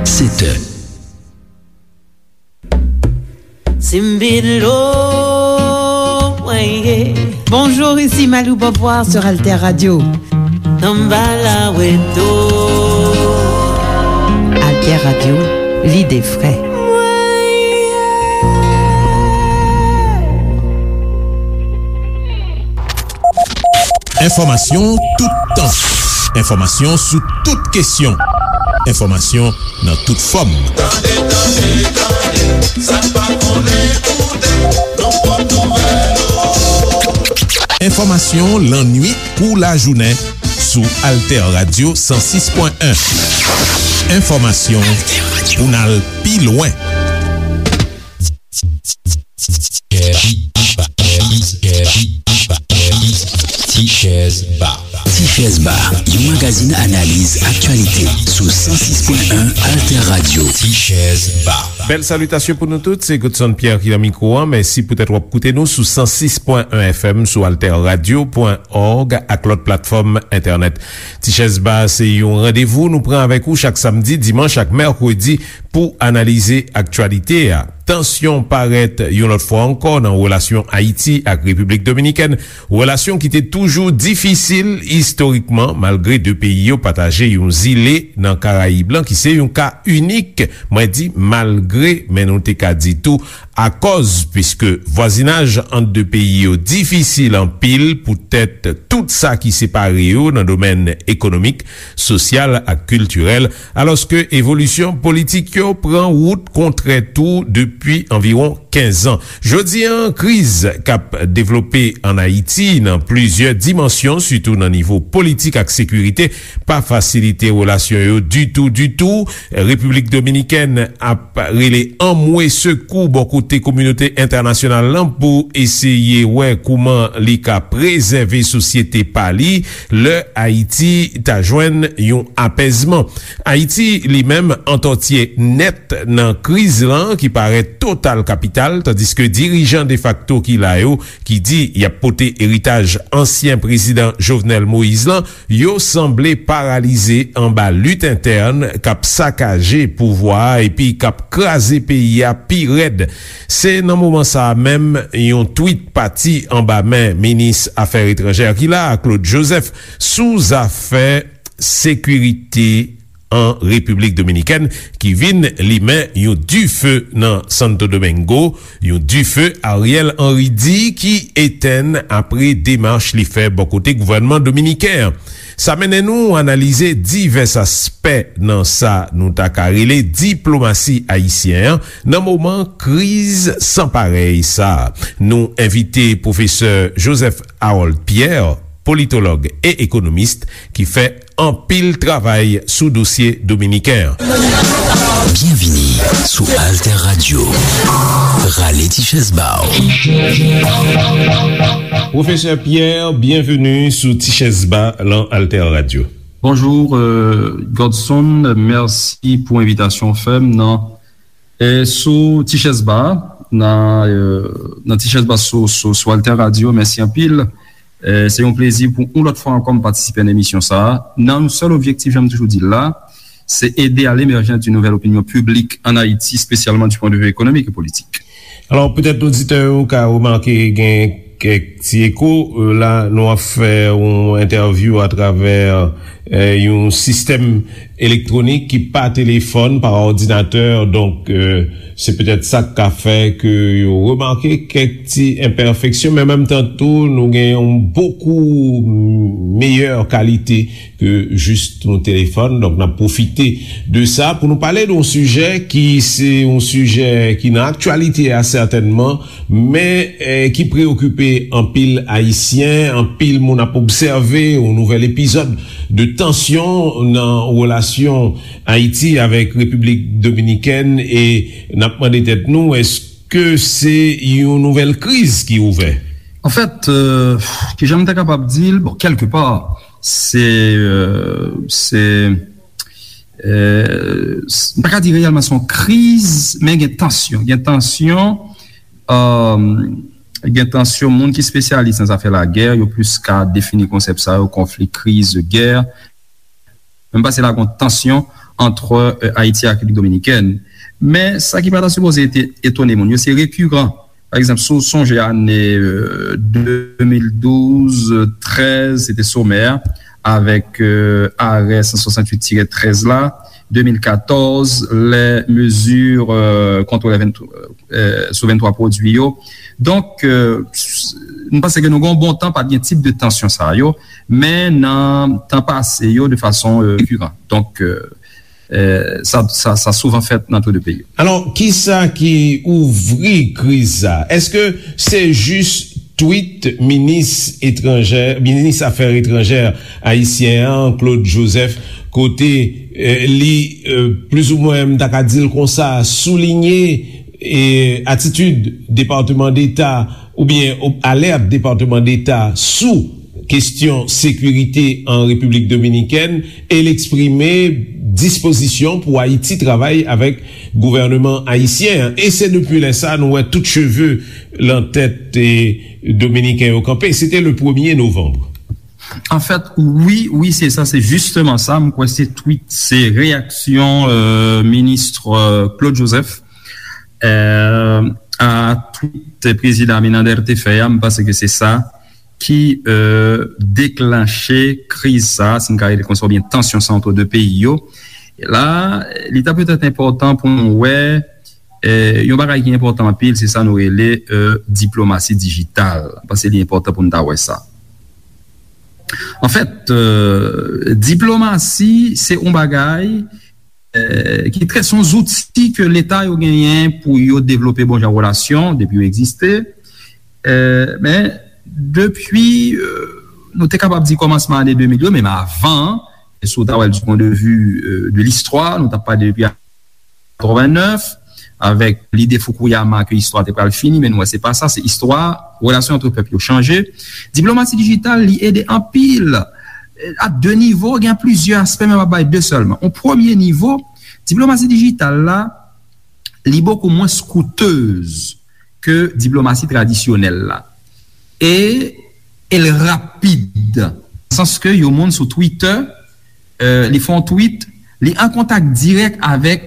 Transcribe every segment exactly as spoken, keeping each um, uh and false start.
Sèt è. Simbilo, mwen ye. Bonjour, ici Malou Beauvoir sur Alter Radio. Samba la weto. Alter Radio, lide fre. Enfòmasyon toutan. Enfòmasyon sou tout kesyon. Enfòmasyon nan tout fòm. Tande, tande, tande, sa n pa konnen koute, nan pòt nouvèl yo. Enfòmasyon lannwit kou lajounen sou Alter Radio san sis pwen en. Enfòmasyon pou n al pi lwen. Tichèz Ba. Tichèz Ba, yon magazin analiz aktyalite sou san sis pwen en Alter Radio. Tichèz Ba. Bèl salitasyon pou nou tout, se Godson Pierre ki nan mikwo a. Mèsi poutèt w ap koute nou sou san sis pwen en F M, sou alter radio pwen òg ak lòt platfòm entènèt. Tichèz Ba se yon randevou nou pran avèk ou chak samdi, dimanch ak mèkredi pou analize aktyalite a. Tansyon parèt yon lòt fwa ankò nan relasyon Ayiti ak Repiblik Dominikèn, relasyon ki te toujou difisil istorikman, malgre de peyi yo pataje yon zile nan Karayib lan, ki se yon ka inik. Mwen di malgre, men nou te ka di tou akòz, piske vwazinaj ant de peyi yo difisil anpil poutèt tout sa ki separe yo nan domèn ekonomik, sosyal ak kiltirèl, alòske evolisyon politik yo pran wout kontrè tou depi anviwon kenz an. Jodi a, kriz k ap devlope ann Ayiti nan plizyè dimansyon, sitou nan nivo politik ak sekirite, pa fasilite relasyon yo ditou, ditou. Repiblik Dominikèn ap rele anmwe sekou bò kote kominote entènasyonal lan pou eseye wè kouman li ka prezève sosyete pa li lè Ayiti ta jwenn yon apèzman. Ayiti, li menm, antòtye nèt nan kriz lan ki parèt total kapital, tandiske dirijan defakto ki la yo, ki di y ap pote eritaj ansyen prezidan Jovenel Moïse lan, yo sanble paralize anba lit entèn k ap sakaje pouvwa a epi k ap kraze peyi a pi rèd. Se nan moman sa a menm, yon twit pati anba men minis afè etranjè ki la a, Claude Joseph, sou zafè sekirite an Repiblik Dominikèn, ki vin limen yon dife nan Santo Domingo, yon dife Ariel Henry di ki etenn apre demach li fè bò kote gouvènman dominiken an. Sa mennen nou analize divès aspè nan sa nou ta ka rele diplomasi ayisyen an nan moman kriz san parèy sa a. Nou envite pwofesè Joseph Harold Pierre, politològ e ekonomis, ki fè anpil travay sou dosye dominiken an. Byenvini sou Alter Radio. Rale ti chèz ba w. Pwofesè Pierre, byenveni sou Ti Chèz Ba lan Alter Radio. Bonjou, euh, Godson, mèsi pou envitasyon w fè m nan, euh, sou Ti Chèz Ba, nan, euh, nan Ti Chèz Ba sou, sou, sou Alter Radio. Mèsi anpil. Euh, se yon plezi pou yon lòt fwa ankò m patisipe nan emisyon sa a, nan yon sèl objektif, jan m toujou di l la, se ede à l'émergence d'une nouvelle opinion publique en Haïti, spécialement du point de vue économique et politique. Alò, petèt oditè yo ka remake gen kèk ti eko. Euh, la, nou ap fè yon entèvyou atravè, euh, yon sistèm elektwonik ki pa telefòn, pa òdinatè. Donk, euh, se petèt sa k ka fè ke yo remake kèk ti enpèfeksyon, men menm tan tou, nou gen yon bokou meyè kalite ke jis yon telefòn. Donk, n ap pwofite de sa pou nou pale de yon sijè ki se yon sijè ki nan aktyalite a, sètènman, men, eh, ki preyokipe anpil Ayisyen. Anpil moun ap obsève yon nouvèl epizòd de tansyon nan relasyon Ayiti avèk Repiblik Dominikèn, e n ap mande tèt nou, èske se yon nouvèl kriz ki ouvè? Anfèt, euh, kijan m ta kapab di l? Bon, kèlke pa, se, euh, se, euh, s-, m pa ka di reyèlman se yon kriz, men gen tansyon. Gen tansyon, euh, gen tansyon, moun ki espesyalis nan zafè lagè, yo plis ka defini konsèp sa yo, konfli, kriz, gè. Men m panse la gen tansyon ant, e, Ayiti ak Repiblik Dominikèn. Men, sa ki pa ta sipoze ete-, etone moun yo, se rekiran. Pa egzanp, si w sonje ane, e, de mil douz, trèz, se te somè a, avèk, e, arè san swasanntuit tirè trèz la, de mil katòz, lè mezi, e, kont lè venntwa, e, sou venntwa pwodui yo. Donk, e, s-, nou panse ke nou gen yon bon tan pa t gen tip de tansyon sa yo, men nan tan pase yo, de fason, e, rekiran. Donk, e, e, sa, sa, sa souvan fèt nan tou de peyi yo. Alò, kisa ki ouvri kriz sa? Èske se jis tweet minis etranjè, minis afè etranjè ayisyen an, Claude Joseph, kote, e, li, e, plizoumwen, m ta ka di l konsa, soulinye, e, atitid Depatman Deta oubyen o-, alèt Depatman Deta sou kestyon sekirite an Repiblik Dominikèn, e l eksprime dispozisyon pou Ayiti travay avèk gouvènman ayisyen an. E se depi lè sa nou wè tout cheve lan tèt, e, dominiken yo kanpe. Se te le premye novanm. Anfèt, wi, wi, se sa, se jisteman sa. M kwè se tweet, se reyaksyon, e, minis, e, Claude Joseph, e, a tweet prezidan Abinader te fè a. M panse ke se sa ki, e, deklanche kriz sa, si n ka rele konsa, oubyen tansyon sa ant de peyi yo. E la, li ta petèt enpòtan pou nou wè, e, yon bagay ki enpòtan anpil, se sa nou rele, e, diplomasi dijital. M panse li enpòtan pou nou ta wè sa. Anfèt, e, diplomasi, se yon bagay, e, ki trè, se yon zouti ke Leta yo genyen pou yo devlope bon jan relasyon, depi yo egziste. E, men, depi, e, nou te kapab di kòmansman ane de mil yo, menm avan, e si w ta wè l du point de vue, e, de listwa, nou t ap pale depi katrevennnèf, avèk lide Fukuyama ke istwa te pral fini, men nou wè se pa sa, se istwa, relasyon ant pèp yo chanje. Diplomasi dijital, li ede anpil, e, a de nivo, gen plizyè aspè, men m ap bay de sèlman. On premye nivo, diplomasi dijital la, li bokou mwens koutez ke diplomasi tradisyonèl la. E, e l rapid. Nan sans ke yon moun sou Twitter, e, li fè yon tweet, li an kontak dirèk avèk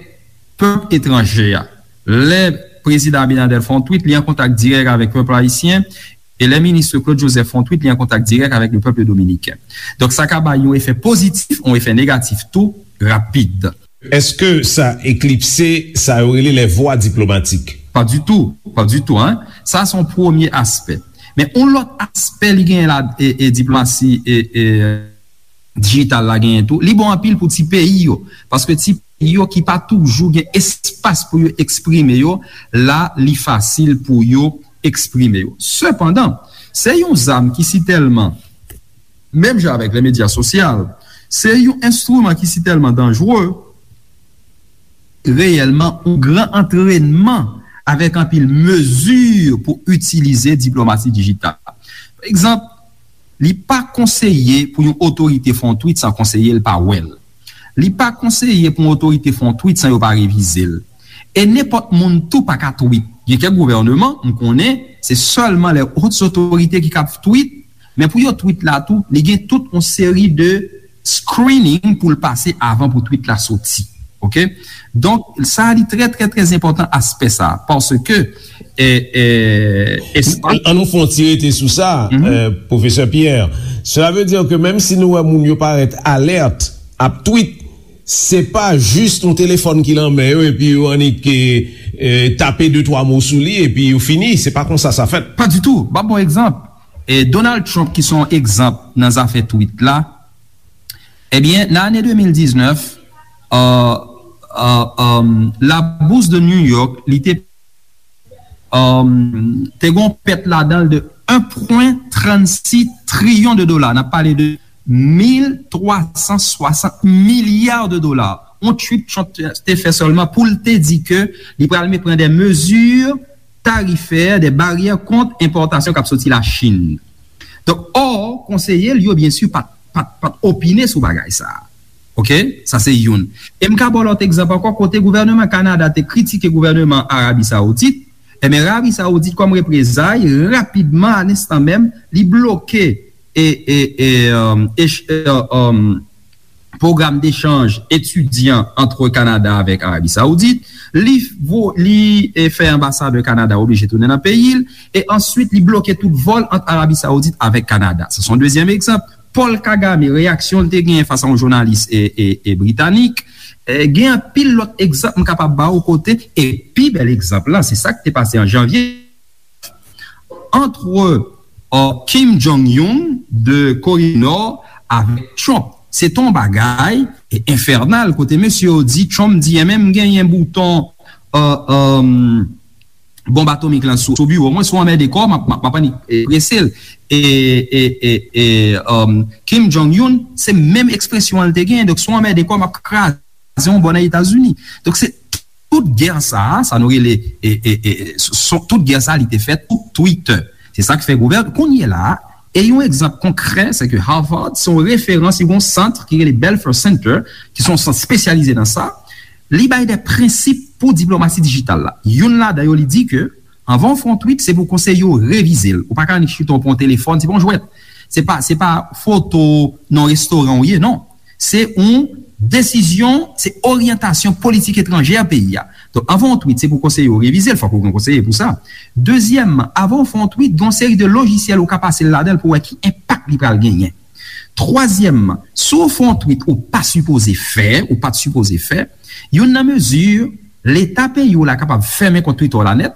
pèp etranje a. Lè prezidan Abinader fè yon tweet, li an kontak dirèk avèk pèp ayisyen, e lè minis Claude Joseph fè yon tweet, li an kontak dirèk avèk le pèp dominiken. Donk, sa ka bay yon efè pozitif, yon efè negatif tou, rapid. Èske sa eklipse sa yo rele les voies diplomatiques? Pa ditou, pa ditou, en. Sa, se yon premye aspè. Men yon lòt aspè li genyen la, e, e diplomasi, e, e, dijital la genyen tou, li bon anpil pou ti peyi yo. Paske ti peyi yo ki pa toujou gen espas pou yo eksprime yo, la, li fasil pou yo eksprime yo. Sepandan, se yon zam ki sitèlman, menm jan avèk le medya sosyal, se yon enstriman ki sitèlman danjere, reyèlman, yon gran antrènman avèk anpil mezi pou itilize diplomasi dijital. Pa egzanp, li pa konseye pou yon otorite fè yon tweet san konseye l pa wè l. Li pa konseye pou yon otorite fè yon tweet san yo pa revize l. E nenpòt moun tou pa ka tweet. Gen kèk gouvènman, m konnen, se sèlman les hautes autorités ki kab tweet, men pou yo tweet la tou, li gen tout yon seri de screening pou l pase avan pou tweet la soti. Oke? Donk, sa li trè, trè, trè enpòtan aspè sa, paske, e, e, espas An nou fè yon ti rete sou sa, e, pwofesè Pierre. Cela veut dire que menm si nou wè moun yo parèt alèt ap tweet, se pa jis yon telefòn ki lan men yo epi yo annik, e, e, tape de twa mo sou li epi yo fini. Se pa konsa sa fèt. Pa ditou. M ap ba w egzanp. E Donald Trump, ki se yon egzanp nan zafè tweet la, ebyen, nan ane de mil diznèf, e, e, e, la bourse de New York, li te, e, te gen yon pèt ladan l de en pwen trannsis triyon de dola. N ap pale de mil twa san swasant milya de dola. Yon tweet Trump te, te fè sèlman pou l te di ke li pral me-, pran de mezi tarifè, de baryè kont enpòtasyon k ap soti Lachin. Donk, ò, konseye l yo, byen si, pa t, pa t, pa t opine sou bagay sa a. Oke? Sa se youn. E m ka ba w lòt egzanp ankò, kote gouvènman Kanada te kritike gouvènman Arabi Saoudit, ebyen, Arabi Saoudit, kòm reprezay, rapidman, a lenstan menm, li bloke e, e, e, um, e, e, um, pwogram dechanj etidyan ant Kanada avèk Arabi Saoudit, li, vo, li e, fè anbasadè Kanada oblije tounen nan peyi l, e answit li bloke tout vòl ant Arabi Saoudit avèk Kanada. Sa se yon dezyèm egzanp. Paul Kagame, reyaksyon l te genyen fas a yon jounalis e, e, e britanik. E, gen anpil lòt egzanp m kapab ba w kote, e pi bèl egzanp lan, se sa k te pase an janvye, antre, euh, Kim Jong-un de Kore di Nò avèk Trump. Se te yon bagay e, enfènal, kote mesye yo di, Trump di, enben m genyen bouton, euh, euh, bonb atomik lan sou, sou biwo mwen, si w anmède kò w, m ap, m ap, m ap annik, e, prese l. E, e, e, e, um, Kim Jong-un, se menm ekspresyon an l te genyen. Donk, si w anmède kò w, m ap kraze yon bò nan Etazini. Donk, se tout gè sa a, sa nou rele, e, e, e, son, tout gè sa a, li te fèt sou Twitter. Se sa k fè gouvèn, kounye la a, e yon egzanp konkrè, se ke Harvard, se yon referans, li gen yon sant ki rele Belfer Center, ki se yon sant espesyalize nan sa. Li bay de prensip pou diplomasi dijital la. Youn ladan yo, li di ke anvan w fè yon tweet, se pou konseye w revize l. Ou pa ka annik chita w pran yon telefòn, se pa yon jwèt. Se pa, se pa foto nan restoran w ye, non. Se yon desizyon, se oryantasyon politik etranjè peyi a. Donk, anvan w tweet, se pou konseye w revize l, fòk ou gen konseye pou sa. Dezyèmman, anvan w fè yon tweet, gen yon seri de lojisyèl ou ka pase l ladan l pou wè ki enpak li pral genyen. Twazyèmman, si w fè yon tweet ou pa sipoze fè, ou pa t sipoze fè, youn nan mezi, Leta peyi w la kapab fèmen kont Twitter w la nèt,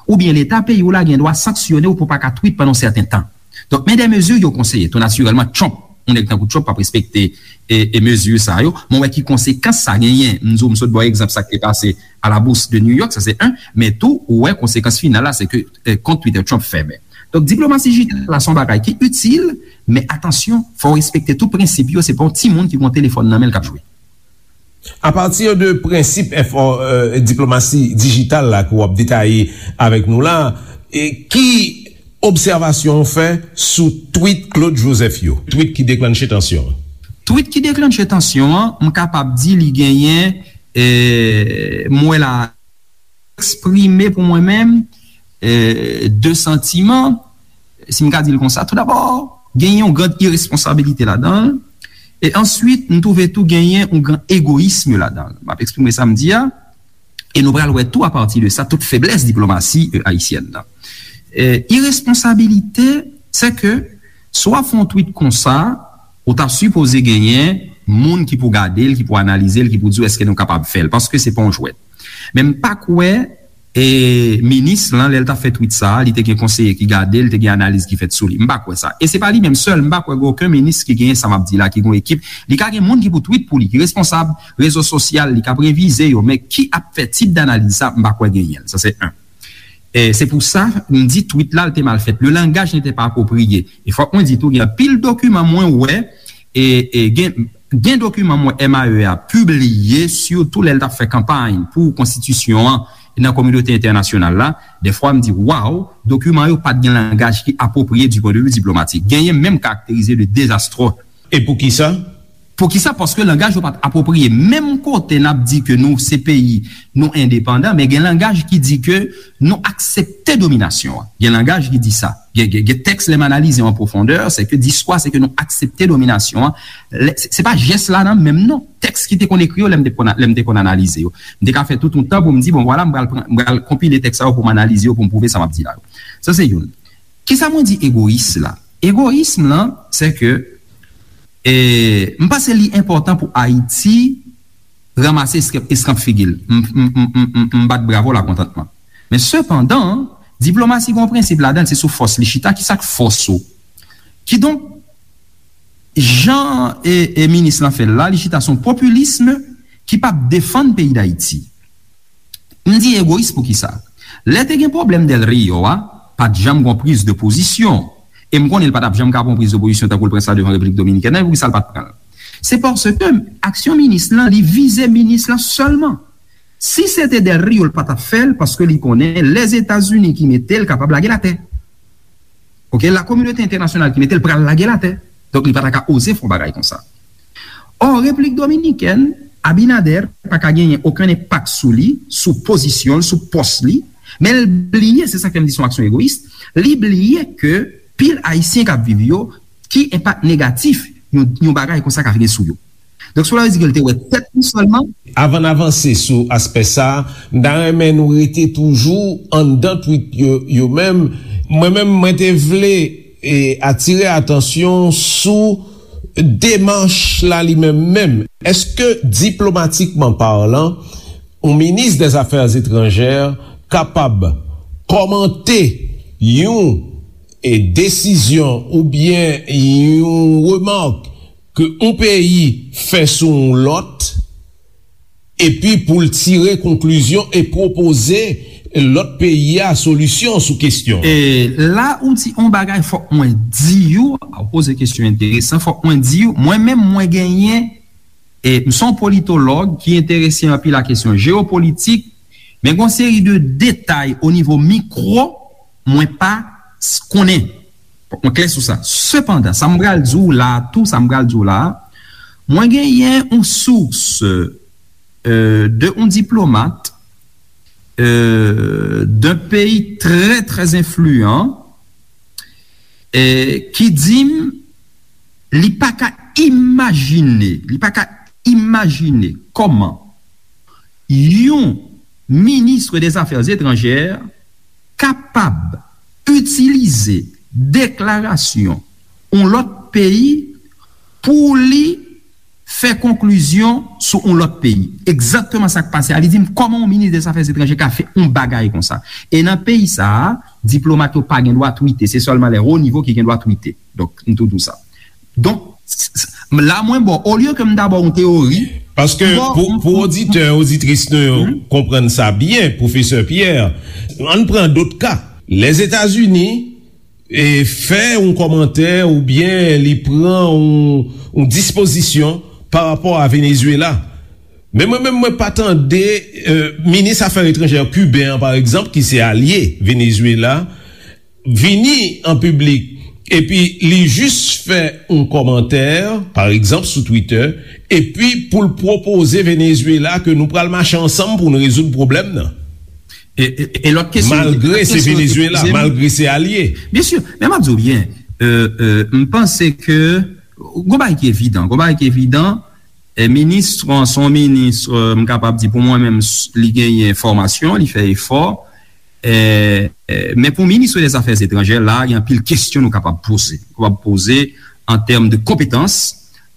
oubyen Leta peyi w la gen dwa sanksyone w pou w pa ka tweet pandan yon sèten tan. Donk, men de mezi yo konseye. Tou natirèlman, Trump, yon nèg tankou Trump p ap respekte e, e mezi sa yo. Men w wè ki konsekans sa genyen. M di w, m sot ba w egzanp sa k te pase à la Bourse de New York, sa se en. Men tou, ou wè konsekans final la, se ke, e, kont Twitter Trump fèmen. Donk, diplomasi dijital la se yon bagay ki itil, men atansyon, fò w respekte tout prensip yo. Se pa yon timoun ki gen yon telefòn nan men l k ap jwe. Apati de prensip enfò, e, diplomasi dijital la ke w ap detaye avèk nou la, e ki obsèvasyon w fè sou tweet Claude Joseph yo? Tweet ki deklanche tansyon an. Tweet ki deklanche tansyon an, m kapab di li genyen, e, m wè la, eksprime pou mwen menm, e, de santiman, si m ka di l konsa. Toudabò, genyen yon gran iresponsabilite ladan l. E answit, m twouve tou genyen yon gran egoyism ladan l. M ap eksprime sa m di a. E nou pral wè tou, apati de sa, tout feblès diplomasi, e, ayisyèn nan. E, iresponsabilite, se ke si w ap fè yon tweet konsa, ou ta sipoze genyen moun ki pou gade l, ki pou analize l, ki pou di w èske nou kapab fè l, paske se pa yon jwèt. Men m pa kwè, e, minis lan, lè l t ap fè tweet sa a, li te gen konseye ki gade l, te gen analiz ki fèt sou li. M pa kwè sa. E se pa li menm sèl, m pa kwè gen okenn minis ki genyen sa m ap di la, ki gen yon ekip. Li ka gen moun ki pou tweet pou li, ki responsab rezo sosyal, li k ap revize yo, men ki ap fè tip danaliz sa, m pa kwè genyen l. Sa se en. E se pou sa, m di tweet la, l te mal fèt. Le langage n'était pas approprié. E fòk mwen di tou, gen anpil dokiman mwen wè, e, e gen, gen dokiman mwen M A E a pibliye, sitou lè l t ap fè kanpay pou konstitisyon an nan kominote entènasyonal la. Dèfwa, m di, waw, dokiman yo pa t gen langaj ki apwopriye du point de vue diplomatique. Genyen menm karakterize de dezastre. E poukisa? Poukisa? Paske langaj yo pa t apwopriye. Menm kote n ap di ke nou se peyi, nou endepandan, men gen langaj ki di ke nou aksepte dominasyon an. Gen langaj ki di sa. Gen, gen, gen tèks, lè m analize yo an pwofondè, se ke diskou a, se ke nou aksepte dominasyon an. Lè, se, se pa jès la nan menm non. Tèks ki te konn ekri yo, lè m te konn, lè m te konn analize yo. M te ka fè tout yon tan pou m di, bon, vwala, m pral pran, m pral konpile tèks sa yo pou m analize yo, pou m pwouve sa m ap di la yo. Sa se youn. Kisa mwen di egoyis la? Egoyism lan, se ke, e, m panse li enpòtan pou Ayiti ranmase eskanp, eskanp figi l. M, m, m, m, m, m bat bravo lakontantman. Men sepandan, diplomasi gen yon prensip ladan l, se sou fòs li chita. Kisa k fòs ou? Kidonk, jan e, e minis lan fè l la, li chita sou yon popilism ki p ap defann peyi Dayiti. M di egoyis poukisa? Lè te gen pwoblèm Del Rio a, pa t janm gon priz de pozisyon. E m konnen l pa t ap janm ka pran yon priz de pozisyon tankou l pran sa devan Repiblik Dominikèn nan, e poukisa l pa t pran l? Se paske aksyon minis lan, li vize minis lan sèlman. Si se te Del Rio, l pa t ap fè l, paske li konnen Lèzetazini ki mete l kapab lage l atè. Oke, la kominote entènasyonal ki mete l pral lage l atè. Donk, li pa ta ka oze fè yon bagay konsa. Ò, Repiblik Dominikèn, Abinader pa ka genyen okenn enpak sou li, sou pozisyon l, sou pòs li, men l bliye, se sa k fè m di se yon aksyon egoyis, li bliye ke pil Ayisyen k ap viv yo, ki enpak negatif yon, yon bagay konsa ka gen sou yo. Donk, cela veut dire ke l te wè tèt li sèlman. Avan n avanse sou aspè sa a, m ta renmen nou rete toujou anndan tweet yo, yo menm. Mwen menm, mwen te vle, e, atire atansyon sou demach la li menm menm. Èske, diplomatikman palan, yon minis dè zafè etranjè kapab kòmante yon, e, desizyon oubyen yon remak ke yon peyi fè sou yon lòt, epi pou l tire konklizyon e pwopoze lòt peyi a solisyon sou kesyon an? E la ou di yon bagay, fòk mwen di w, ou poze kesyon enteresan, fòk mwen di w, mwen menm mwen genyen, e m se yon politològ ki enterese anpil a kesyon jewopolitik, men gen yon seri de detay o nivo mikwo mwen pa s- konnen. Fòk mwen klè sou sa. Sepandan, sa m pral di w la a tou, sa m pral di w la a, mwen genyen yon sous, euh, de yon diplomat, euh, d'un pays très, très influent, eh, ki di m li pa ka imajine, li pa ka imajine kòman yon minis dè zafè etranjè kapab itilize deklarasyon yon lòt peyi pou li fè konklizyon sou yon lòt peyi. Egzakteman sa k pase a, li di m kòman yon minis dè zafè etranjè ka fè yon bagay konsa. E nan peyi sa a, diplomat yo pa gen dwa twite, se sèlman lè wo nivo ki gen dwa twite. Donk, m tou di w sa. Donk, s- s- la mwen ba w, olye ke m ta ba w yon teyori, Paske m ba w- pou, m- pou m- oditè, oditris nou yo konprann sa byen, pwofesè Pierre, ann pran dòt ka. Lèzetazini e, fè yon kòmantè oubyen li pran yon, yon dispozisyon pa rapò a Venezuela. Men mwen menm, mwen pa tande, e, minis afè etranjè kiben an, pa egzanp, ki se alye Venezuela, vini an piblik, epi li jis fè yon kòmantè, pa egzanp, sou Twitter, epi pou l pwopoze Venezuela ke nou pral mache ansanm pou n rezoud pwoblèm nan. E, e, e lòt kesyon, Malgre lòt se kesyon yo te Venezuela, poze m. Malgre se alye. Byen si, men m ap di w byen, euh, euh, m panse ke gon bagay ki evidan, gon bagay ki evidan, e minis, bon, se yon minis, euh, m kapab di pou mwen menm, s- li genyen fòmasyon, li fè efò, e, e, men pou minis dè zafè etranjè, la, gen anpil kesyon nou kapab poze. Nou kapab poze an tèm de konpetans,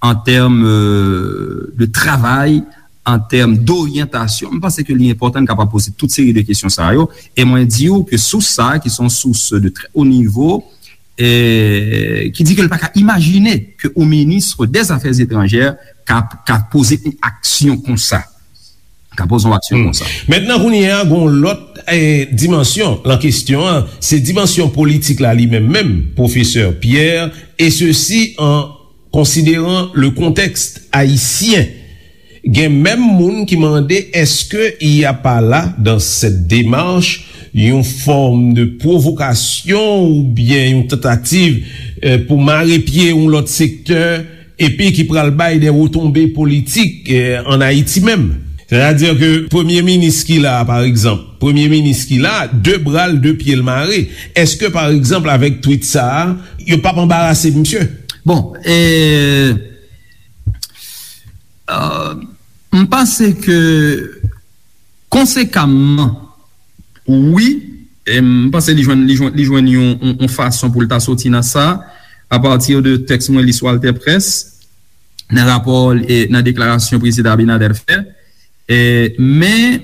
an tèm, euh, de travay, an tèm doryantasyon. M panse ke li enpòtan n kapab poze tout seri de kesyon sa yo. E mwen di w ke sous sa, ki se yon sous de trè wo nivo, e, ki di ke l pa ka imajine ke yon minis dè zafè etranjè ka, ka poze yon aksyon konsa. Ka poze yon aksyon konsa. Mentnan, kounye a, gon lòt, e, dimansyon lan kesyon an, se dimansyon politik la li menm menm, pwofesè Pierre, et ceci en considérant le contexte haïtien. Gen menm moun ki mande, est-ce qu'il n'y a pas là, dans cette démarche, yon fòm de pwovokasyon oubyen yon tantativ, eh, pou mare pye yon lòt sektè, epi ki pral bay de retonbe politik, eh, ann Ayiti menm? Sètadi ke premye minis ki la a, pa egzanp, premye minis ki la a, de bra l, de pye l mare. Èske, pa egzanp, avèk twit sa a, yo p ap anbarase misye? Bon, e, euh, m panse ke konsekamman, wi, e m panse li jwenn, li jwenn, li jwenn yon, yon, yon fason pou l ta soti nan sa, apati de tèks mwen li sou AlterPresse, nan rapò, e, nan deklarasyon prezidan Abinader fè. E, men,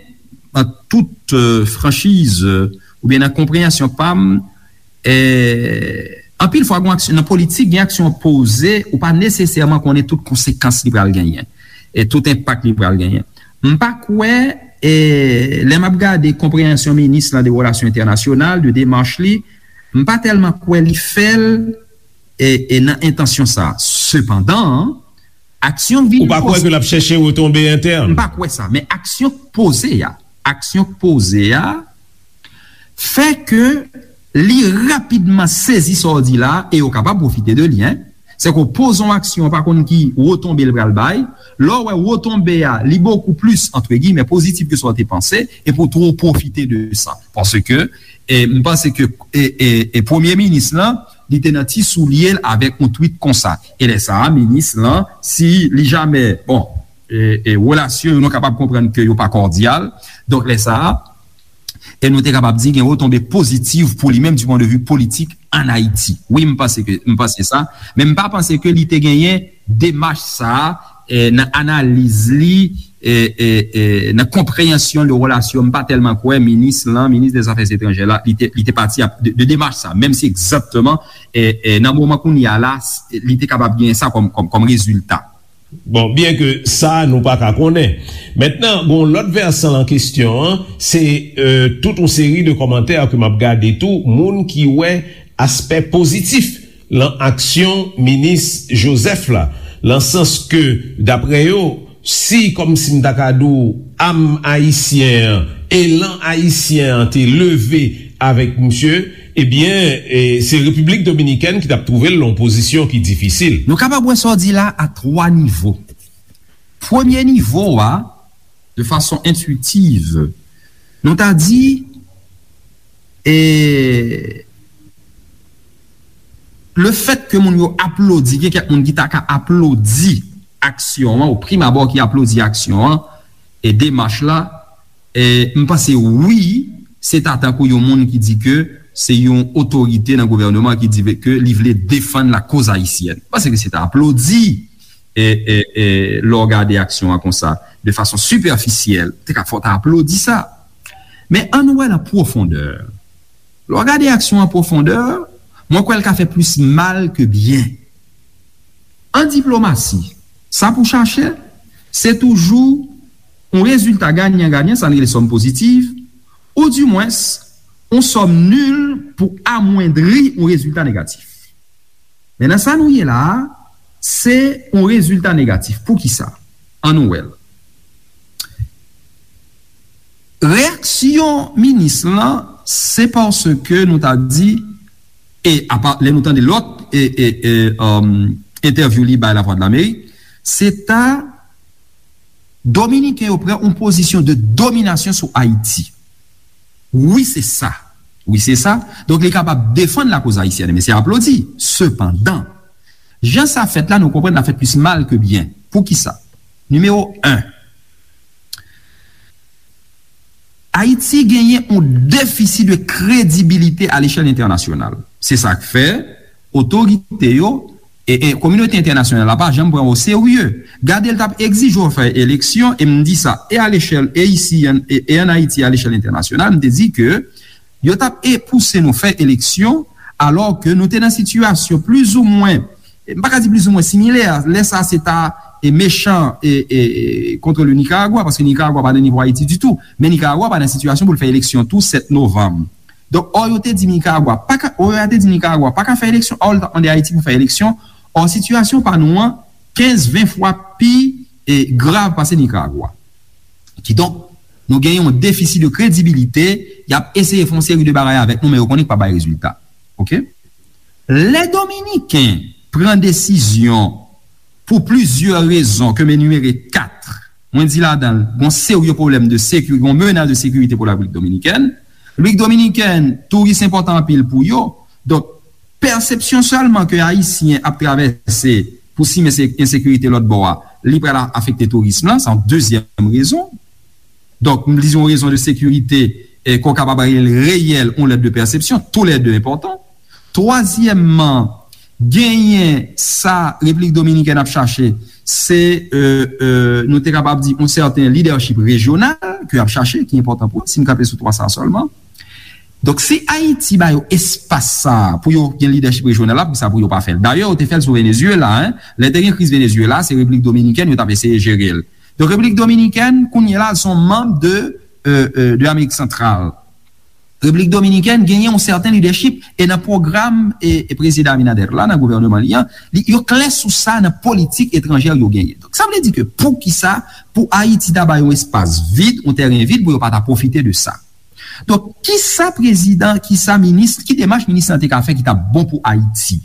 an tout, e, franchiz, e, oubyen nan konpreyansyon pa m, e, anpil fwa, gen aksyon, nan politik, gen aksyon poze, ou pa nesesèman konnen tout konsekans li pral genyen, e tout enpak li pral genyen. M pa kwè, e, lè m ap gade konpreyansyon minis lan de relasyon entènasyonal, de demach li, m pa tèlman kwè li fè l, e, e nan entansyon sa. Sepandan, aksyon k vin Ou pa kwè poze ke l ap chèche retonbe entèn? M pa kwè sa, men aksyon k poze a, aksyon k poze a, fè ke li rapidman sezi sa w di la, e yo kapab pwofite de li, en. Se ke w poze yon aksyon, w pa konn ki retonbe l pral bay. Lè w wè retonbe a, li bokou plis, antre giymen, pozitif ke sa w te panse, epi w twò pwofite de sa. Paske, e, m panse ke, e, e, e premye minis lan, li te nan ti soulye l avèk yon tweet konsa. E lè sa a, minis lan, si li jamè, bon, e, e, relasyon yo, nou kapab konprann ke yo pa kòdyal. Donk, lè sa a, e nou te kapab di gen retonbe pozitif pou li menm du point de vue politik ann Ayiti. Wi, m panse ke, m panse sa, men m pa panse ke li te genyen demach sa a, e, nan analiz li, e, e, e, nan konpreyansyon de relasyon, m pa tèlman kwè minis lan, minis dè zafè etranjè la, li te, li te pati ap, de, de demach sa, menm si egzakteman, e, e, nan moman kounye a la, s-, li te kapab genyen sa kòm, kòm, kòm rezilta. Bon, byen ke sa, nou pa ka konnen. Mentnan, gon lòt vèsan lan kesyon an, se, e, tout yon seri de kòmantè ke m ap gade tou, moun ki wè aspè pozitif lan aksyon minis Joseph la, lan sans ke, daprè yo, si, kòmsi m ta ka di w, am ayisyen an, elan ayisyen an te leve avèk misye, ebyen, e, se Repiblik Dominikèn ki t ap twouve l lan yon pozisyon ki difisil. Nou kapab wè sa w di la a twa nivo. Premye nivo a, de fason entwitiv, nou ta di, e, le fèt ke moun yo aplodi, gen kèk moun ki ta ka aplodi aksyon an, o prim abò ki aplodi aksyon an, e demach la, e, m panse wi, se ta tankou yon moun ki di ke se yon otorite nan gouvènman ki di ke li vle defann lakoz ayisyèn. M panse ke se ta aplodi, e, e, e, lè w gade aksyon an konsa, de fason sipèfisyèl, te ka fò ta aplodi sa. Men ann wè l an pwofondè. Lè w gade aksyon an pwofondè, mwen kwè l ka fè plis mal ke byen. An diplomasi, sa pou chache, se toujou yon rezilta ganyan-ganyan, sa n rele sòm pozitiv, oudimwens, yon sòm nil pou amwendri yon rezilta negatif. Men nan sa nou ye la a, se yon rezilta negatif. Poukisa? Ann nou wè l. Reyaksyon minis lan, se paske nou ta di, e apa, lè nou tande lòt, e, e, e, um, entèvyou li bay Lavwadlamerik, se ta Dominiken yo pran yon pozisyon de dominasyon sou Ayiti. Wi, se sa. Wi, se sa. Donk, li kapab defann lakoz ayisyèn, men se aplodi. Sepandan, jan sa fèt la, nou konprann l ap fè plis mal ke byen. Poukisa? Nimewo en, Ayiti genyen yon defisi de kredibilite a lechèl entènasyonal. Se sa k fè otorite yo e, e kominote entènasyonal la pa janm pran w o serye. Gade, l t ap egzije w fè eleksyon, e m di sa, e a lechèl, e isi, e, e ann Ayiti, a lechèl entènasyonal, m te di ke yo t ap e pouse nou fè eleksyon, alò ke nou te nan sitiyasyon plizoumwen, e m pa ka di plizoumwen similè, lè sa se ta e mechan e, e, e contre le Nicaragua, paske Nicaragua pa nan nivo Ayiti ditou, men Nicaragua pa nan sitiyasyon pou l fè eleksyon tou sèt novanm. Donk, ò yo te di Nicaragua pa ka, ò yo te di Nicaragua pa ka fè eleksyon, ò l t ap mande Ayiti pou fè eleksyon, ò sitiyasyon pa nou an kenz, ven fwa pi, e, grav pase Nicaragua. Kidonk, nou gen yon defisi de kredibilite, y ap eseye fè yon seri de bagay avèk nou, men yo konnen k p ap bay rezilta. Oke? Lè Dominiken pran desizyon pou plizyè rezon ke m enimere kat, mwen di ladan l, gon serye pwoblèm de sekirite, gon menas de sekirite pou Repiblik Dominikèn. Repiblik Dominikèn, touris enpòtan anpil pou yo. Donk, pèsepsyon sèlman ke Ayisyen ap travèse pou simen se ensekirite lòt bò a, li pral afekte tourism lan, se yon dezyèm rezon. Donk, m di yon rezon de sekirite, e, ke w kapab rele reyèl, yon lèt de pèsepsyon, toulède enpòtan. Twazyèmman, genyen sa Repiblik Dominikèn ap chache, se, e, e, nou te kapab di, yon sèten lidèchip rejyonal ke y ap chache, ki enpòtan pou yo, si m kanpe sou twa sa sèlman. Donk, si Ayiti ba yo espas sa a pou yo gen lidèchip rejyonal la, poukisa pou yo pa fè l? Dayè, yo te fè l sou Venezuela, en. Lè te gen kriz Venezuela, se Repiblik Dominikèn yo t ap eseye jere l. Donk, Repiblik Dominikèn, kounye a la, se yon manm de, e, e, de Amerik Santral. Repiblik Dominikèn genyen yon sèten lidèchip, e nan pwogram, e, e prezidan Abinader la, nan gouvèneman li an, li, yo klè sou sa nan politik etranjè yo genyen. Donk, sa vle di ke poukisa pou Ayiti ta bay yon espas vid, yon tèren vid, pou yo pa ta pwofite de sa? Donk, kisa prezidan, kisa minis, ki demach minis lan te ka fè ki t ap bon pou Ayiti?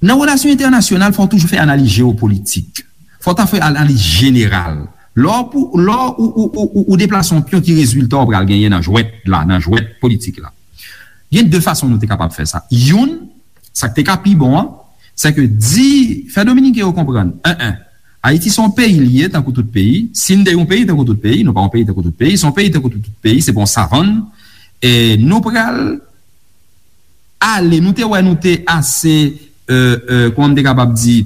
Nan relasyon entènasyonal, fò w toujou fè analiz jewopolitik. Fò w ta fè analiz jeneral. Lè w pou, lè w ou, ou, ou, ou, ou deplase yon pyon, ki rezilta w pral genyen nan jwèt la, nan jwèt politik la? Gen de fason nou te kapab fè sa. Youn, sa k te ka pi bon an, se ke di, fè Dominiken yo konprann, en, en, Ayiti se yon peyi li ye, tankou tout peyi. Si n te yon peyi tankou tout peyi, nou pa yon peyi tankou tout peyi, se yon peyi tankou tout, tout peyi, se pa yon savann. E nou pral ale, nou te wè nou te ase, euh, euh, kòman m te kapab di,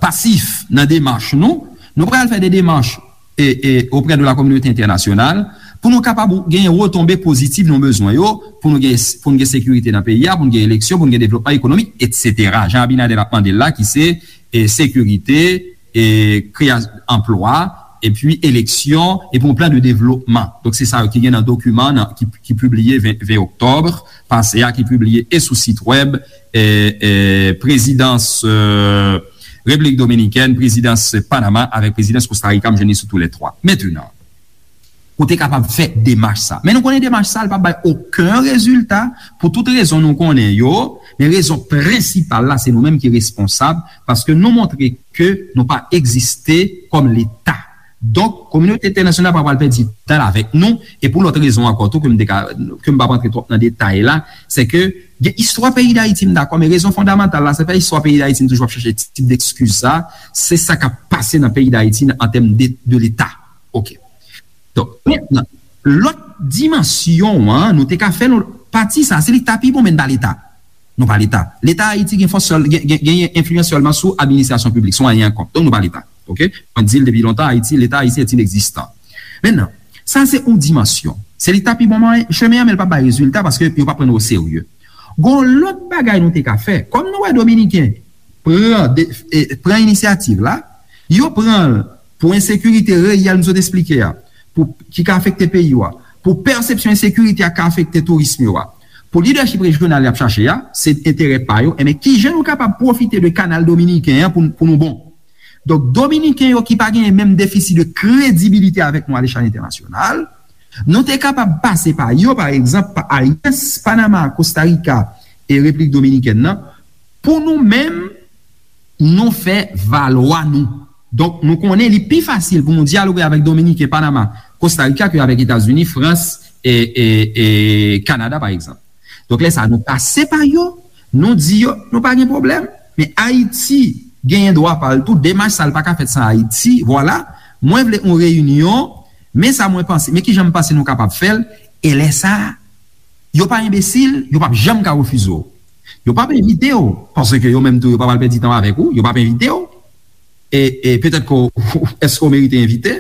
pasif nan demach nou, nou pral fè de demach e, e, auprès de la communauté internationale pou nou kapab genyen retonbe pozitif nou bezwen yo, pou nou gen, pou nou gen sekirite nan peyi a, pou nou gen eleksyon, pou nou gen devlopman ekonomik, etsetera. Jan Abinader ap mande l la, ki se, e, sekirite, e, kreya-, anplwa, epi eleksyon, epi yon plan de devlopman. Donk, se sa yo ki gen nan dokiman nan, ki, ki pibliye ven, ven oktòb pase a, ki pibliye e sou sit wèb, e, e, prezidans, e, Repiblik Dominikèn, prezidans Panama avèk prezidans Kosta Rika, m jwenn li sou tou lè twa. Mentenan, ou te kapab fè demach sa. Men nou konnen demach sa, li p ap bay okenn rezilta pou tout rezon nou konnen yo, men rezon prensipal la, se nou menm ki responsab, paske nou montre ke nou pa egziste kòm Leta. Donk, kominote entènasyonal pa pral pèdi tan l avèk nou, e pou lòt rezon ankò tou, ke m te ka, ke m p ap rantre twòp nan detay la, se ke gen istwa peyi Dayiti, m dakò, men rezon fondamantal la, se pa istwa peyi Dayiti, m toujou ap chache tip dekskiz sa, se sa k ap pase nan peyi Dayiti an tèm de, de Leta. Oke. Donk, mentnan, lòt dimansyon an, nou te ka fè l, pati sa, se li k ta pi bon, men n pa Leta. Nou pa Leta. Leta Ayiti gen fòs sèl, gen, gen, genyen enfliyans sèlman sou administrasyon piblik, sou anyen ankò. Donk, nou pa Leta. Oke? Mwen di l depi lontan, Ayiti, Leta Ayisyen est inexistant. Mentnan, sa se yon dimansyon. Se li k ta pi bon mwen, chemen an, men l p ap bay rezilta paske yo p ap pran nou oserye. Gon lòt bagay nou te ka fè. Kòm nou wè Dominiken pran, de, e, pran inisyativ la, yo pran l pou ensekirite reyèl m sot esplike a, pou, ki ka afekte peyi yo a, pou pèsepsyon ensekirite a ka afekte tourism yo a, pou lidèchip rejyonal y ap chache a, se enterè pa yo, enben kijan nou kapab pwofite de kanal dominiken an pou, pou nou bon? Donk, Dominiken yo ki pa genyen menm defisi de kredibilite avèk nou alechal entènasyonal, nou te kapab pase pa yo, pa egzanp, pa Alyans Panama, Kosta Rika e Repiblik Dominikèn nan, pou nou menm, nou fè valwa nou. Donk, nou konnen li pi fasil pou nou dyaloge avèk Dominiken, Panama, Kosta Rika ke avèk Etazini, Frans e, e, e Kanada, pa egzanp. Donk, lè sa, nou pase pa yo, nou di yo, nou pa gen pwoblèm, men Ayiti genyen dwa pa l tou, demach sa, l pa ka fèt san Ayiti, vwala, mwen vle yon reyinyon, men sa mwen panse, men kijan m panse nou kapab fè l, e lè sa, yo pa enbesil, yo p ap janm ka refize w. Yo p ap envite w, paske yo menm tou, yo pa pral pèdi tan avèk ou, yo p ap envite w. E, e petèt ke w, èske w merite envite,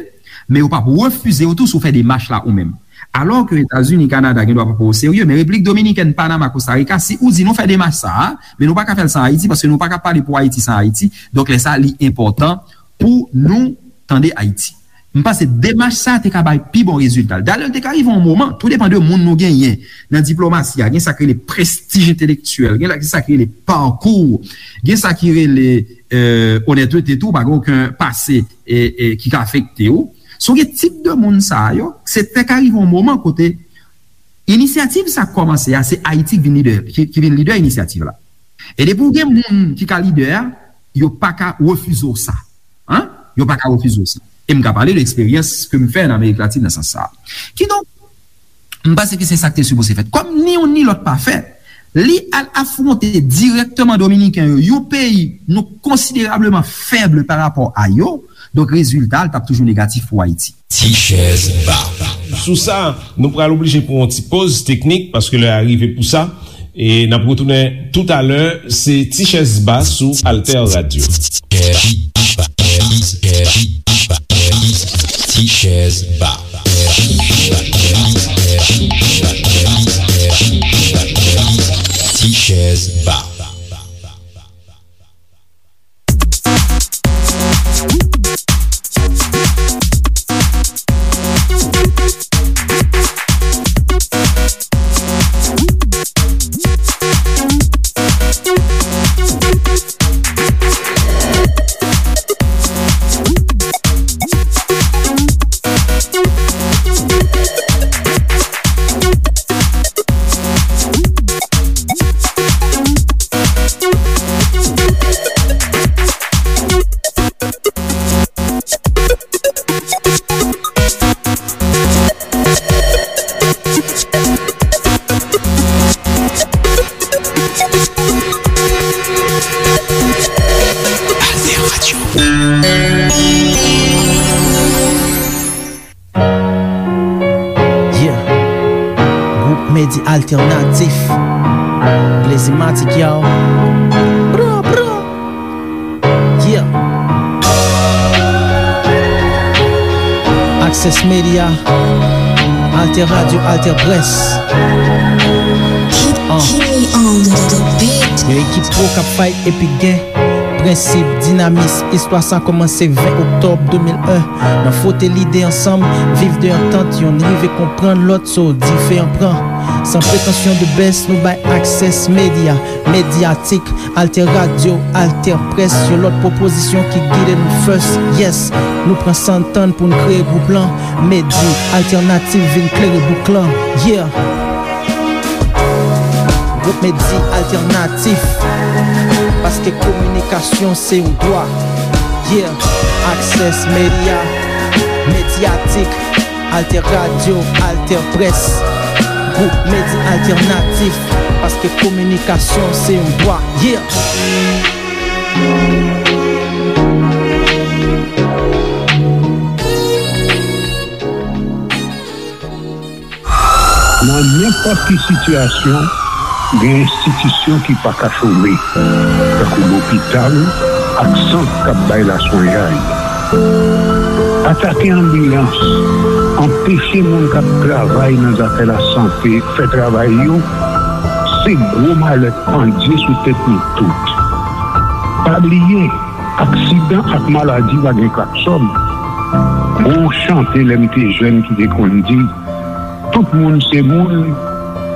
men yo p ap refize w tou si w fè demach la ou menm. Alò ke Etazini, Kanada gen dwa pa pran w oserye, men Repiblik Dominikèn, Panama, Kosta Rika, si ou di nou fè demach sa a, men nou pa ka fè l san Ayiti, paske nou pa ka pale pou Ayiti san Ayiti. Donk, lè sa, li enpòtan pou nou tande Ayiti. M panse demach sa a te ka bay pi bon rezilta. Dayè, li te ka rive yon moman, tou depann de moun nou genyen nan diplomasi a, gen sa k rele prestij entelektyèl, gen la, gen sa k rele pakou, gen sa ki rele, e, onètete tou, pa gen okenn pase, e, e, ki ka afekte w. Si w gen tip de moun sa a yo, se te ka rive yon moman kote inisyativ sa k kòmanse a, se Ayiti k vin lidè, ki, ki vin lidè inisyativ la. E depi w gen moun ki ka lidè a, yo pa ka refize w sa. Hein? Yo pa ka refize w sa. E m ka pale de eksperyans ke m fè nan Amerik Latin nan sans sa a. Kidonk, m panse ke se sa k te sipoze fèt. Kòm ni youn ni lòt pa fèt, li al afwonte dirèkteman Dominiken yo, yon peyi nou konsiderableman fèb pa rapò a yo, donk rezilta a, l t ap toujou negatif pou Ayiti. Ti chèz ba. Sou sa, nou pral oblije pran yon ti poz teknik paske lè a rive pou sa. E n ap retounen toutalè, se Ti chèz ba sou Alter Radio. Ti chèz ba. Ti chèz ba. Ti Alternatif. Blazymatic, yo. Bra, bra. Yeah. Access Media. Alter Radio, Alter Press. Uh. Yon ekip pwo k ap fight epi gen prensip, dinamis. Istwa sa kòmanse ven oktòb de mil en. Nan fwote lide ansanm, viv de antant, yonn rive konprann lòt, so diferan pran. San pretansyon de best, nou bay Access Media, Medyatik, Alter Radio, Alter Press, yon lòt pwopozisyon ki gide nou first. Yes, nou pran san tann pou n kreye gwoup lan. Medi Alternatif vin klere bouk lan. Yeah. Gwoup Medi Alternatif, paske kominikasyon se yon dwa. Yeah, Access Media, Medyatik, Alter Radio, Alter Press. Gwoup Medi Alternatif, paske kominikasyon se yon dwa. Yeah. Nan nenpòt ki sitiyasyon, gen enstitisyon ki pa ka chome, tankou lopital ak sant k ap bay laswenyay. Atake anbilans, anpeche moun k ap travay nan zafè lasante fè travay yo, se gwo malèt pandye sou tèt nou tout. Pa bliye, aksidan ak maladi pa gen klaksòn. Gon chante lè m te jèn ki te konn di, tout moun se moun,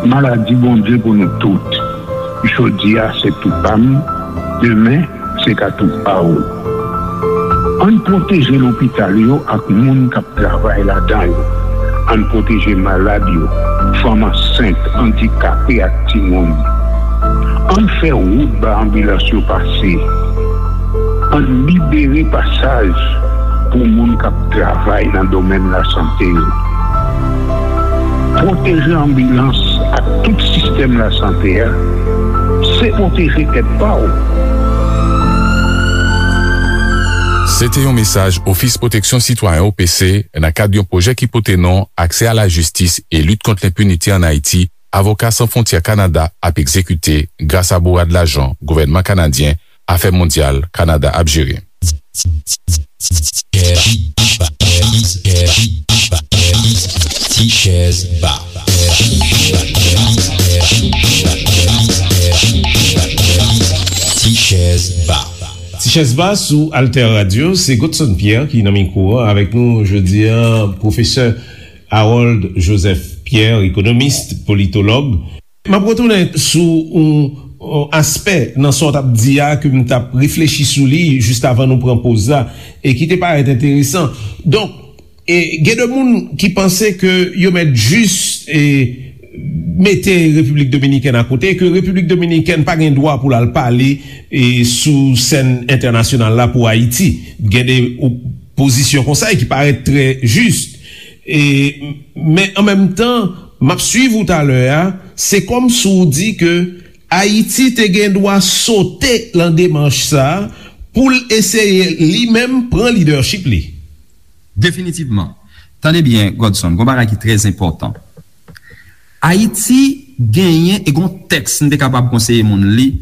maladi Bondye pou nou tout. Jodi a se tou pa m, demen se ka tou pa w. Ann pwoteje lopital yo ak moun k ap travay ladan yo. Ann pwoteje malad yo, fanm ansent, andikape ak timoun. Ann fè wout ba anbilans yo pase. Ann libere pasaj pou moun k ap travay nan domèn lasante yo. Pwoteje anbilans ak tout sistèm lasante a, se pwoteje tèt pa w. Se te yon mesaj Ofis Pwoteksyon Sitwayen, O P C, nan kad yon pwojè ki pote non Aksè a la jistis e lit kont lenpinite ann Ayiti, Avoka San Fwontyè Kanada ap egzekite gras a bourad lajan gouvènman kanadyen, Afè Mondyal Kanada ap jere. Ti chèz ba. Ti chèz ba. Ti chèz ba sou Alter Radio, se Godson Pierre ki nan mikwo a. Avèk nou jodi a, pwofesè Harold Joseph Pierre, ekonomis, politològ. M ap retounen sou yon, yon aspè nan sa w t ap di a, ke m t ap reflechi sou li jis avan nou pran poz la, e ki te parèt enteresan. Donk, e, gen de moun ki panse ke yo mèt jis, e, mete Repiblik Dominikèn akote, ke Repiblik Dominikèn pa gen dwa pou l al pale, e, sou sèn entènasyonal la pou Ayiti. Gen de o-, pozisyon konsa e ki parèt trè jis. E, men an menm tan, m ap swiv ou talè a, se kòmsi w di ke Ayiti te gen dwa sote lan demach sa a pou l eseye li menm pran lidèchip li. Definitivman. Tande byen, Godson, gon bagay ki trè enpòtan. Ayiti genyen, e gon tèks m te kapab konseye moun li,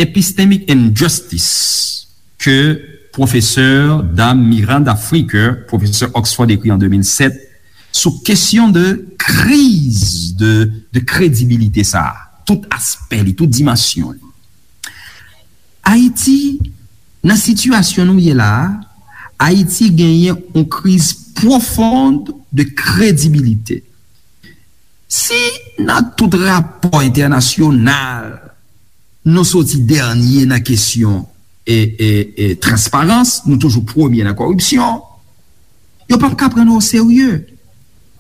Epistemic Injustice, ke pwofesè dam Miranda Fricker, pwofesè Oxford, ekri an de mil sèt, sou kesyon de kriz de, de kredibilite sa a, tout aspè li, tout dimansyon li. Ayiti, nan sitiyasyon nou ye la a, Ayiti genyen yon kriz pwofon de kredibilite. Si nan tout rapò entènasyonal, nou soti dènye nan kesyon e, e, e transparans, nou toujou premye nan kòripsyon, yo p ap ka pran nou oserye.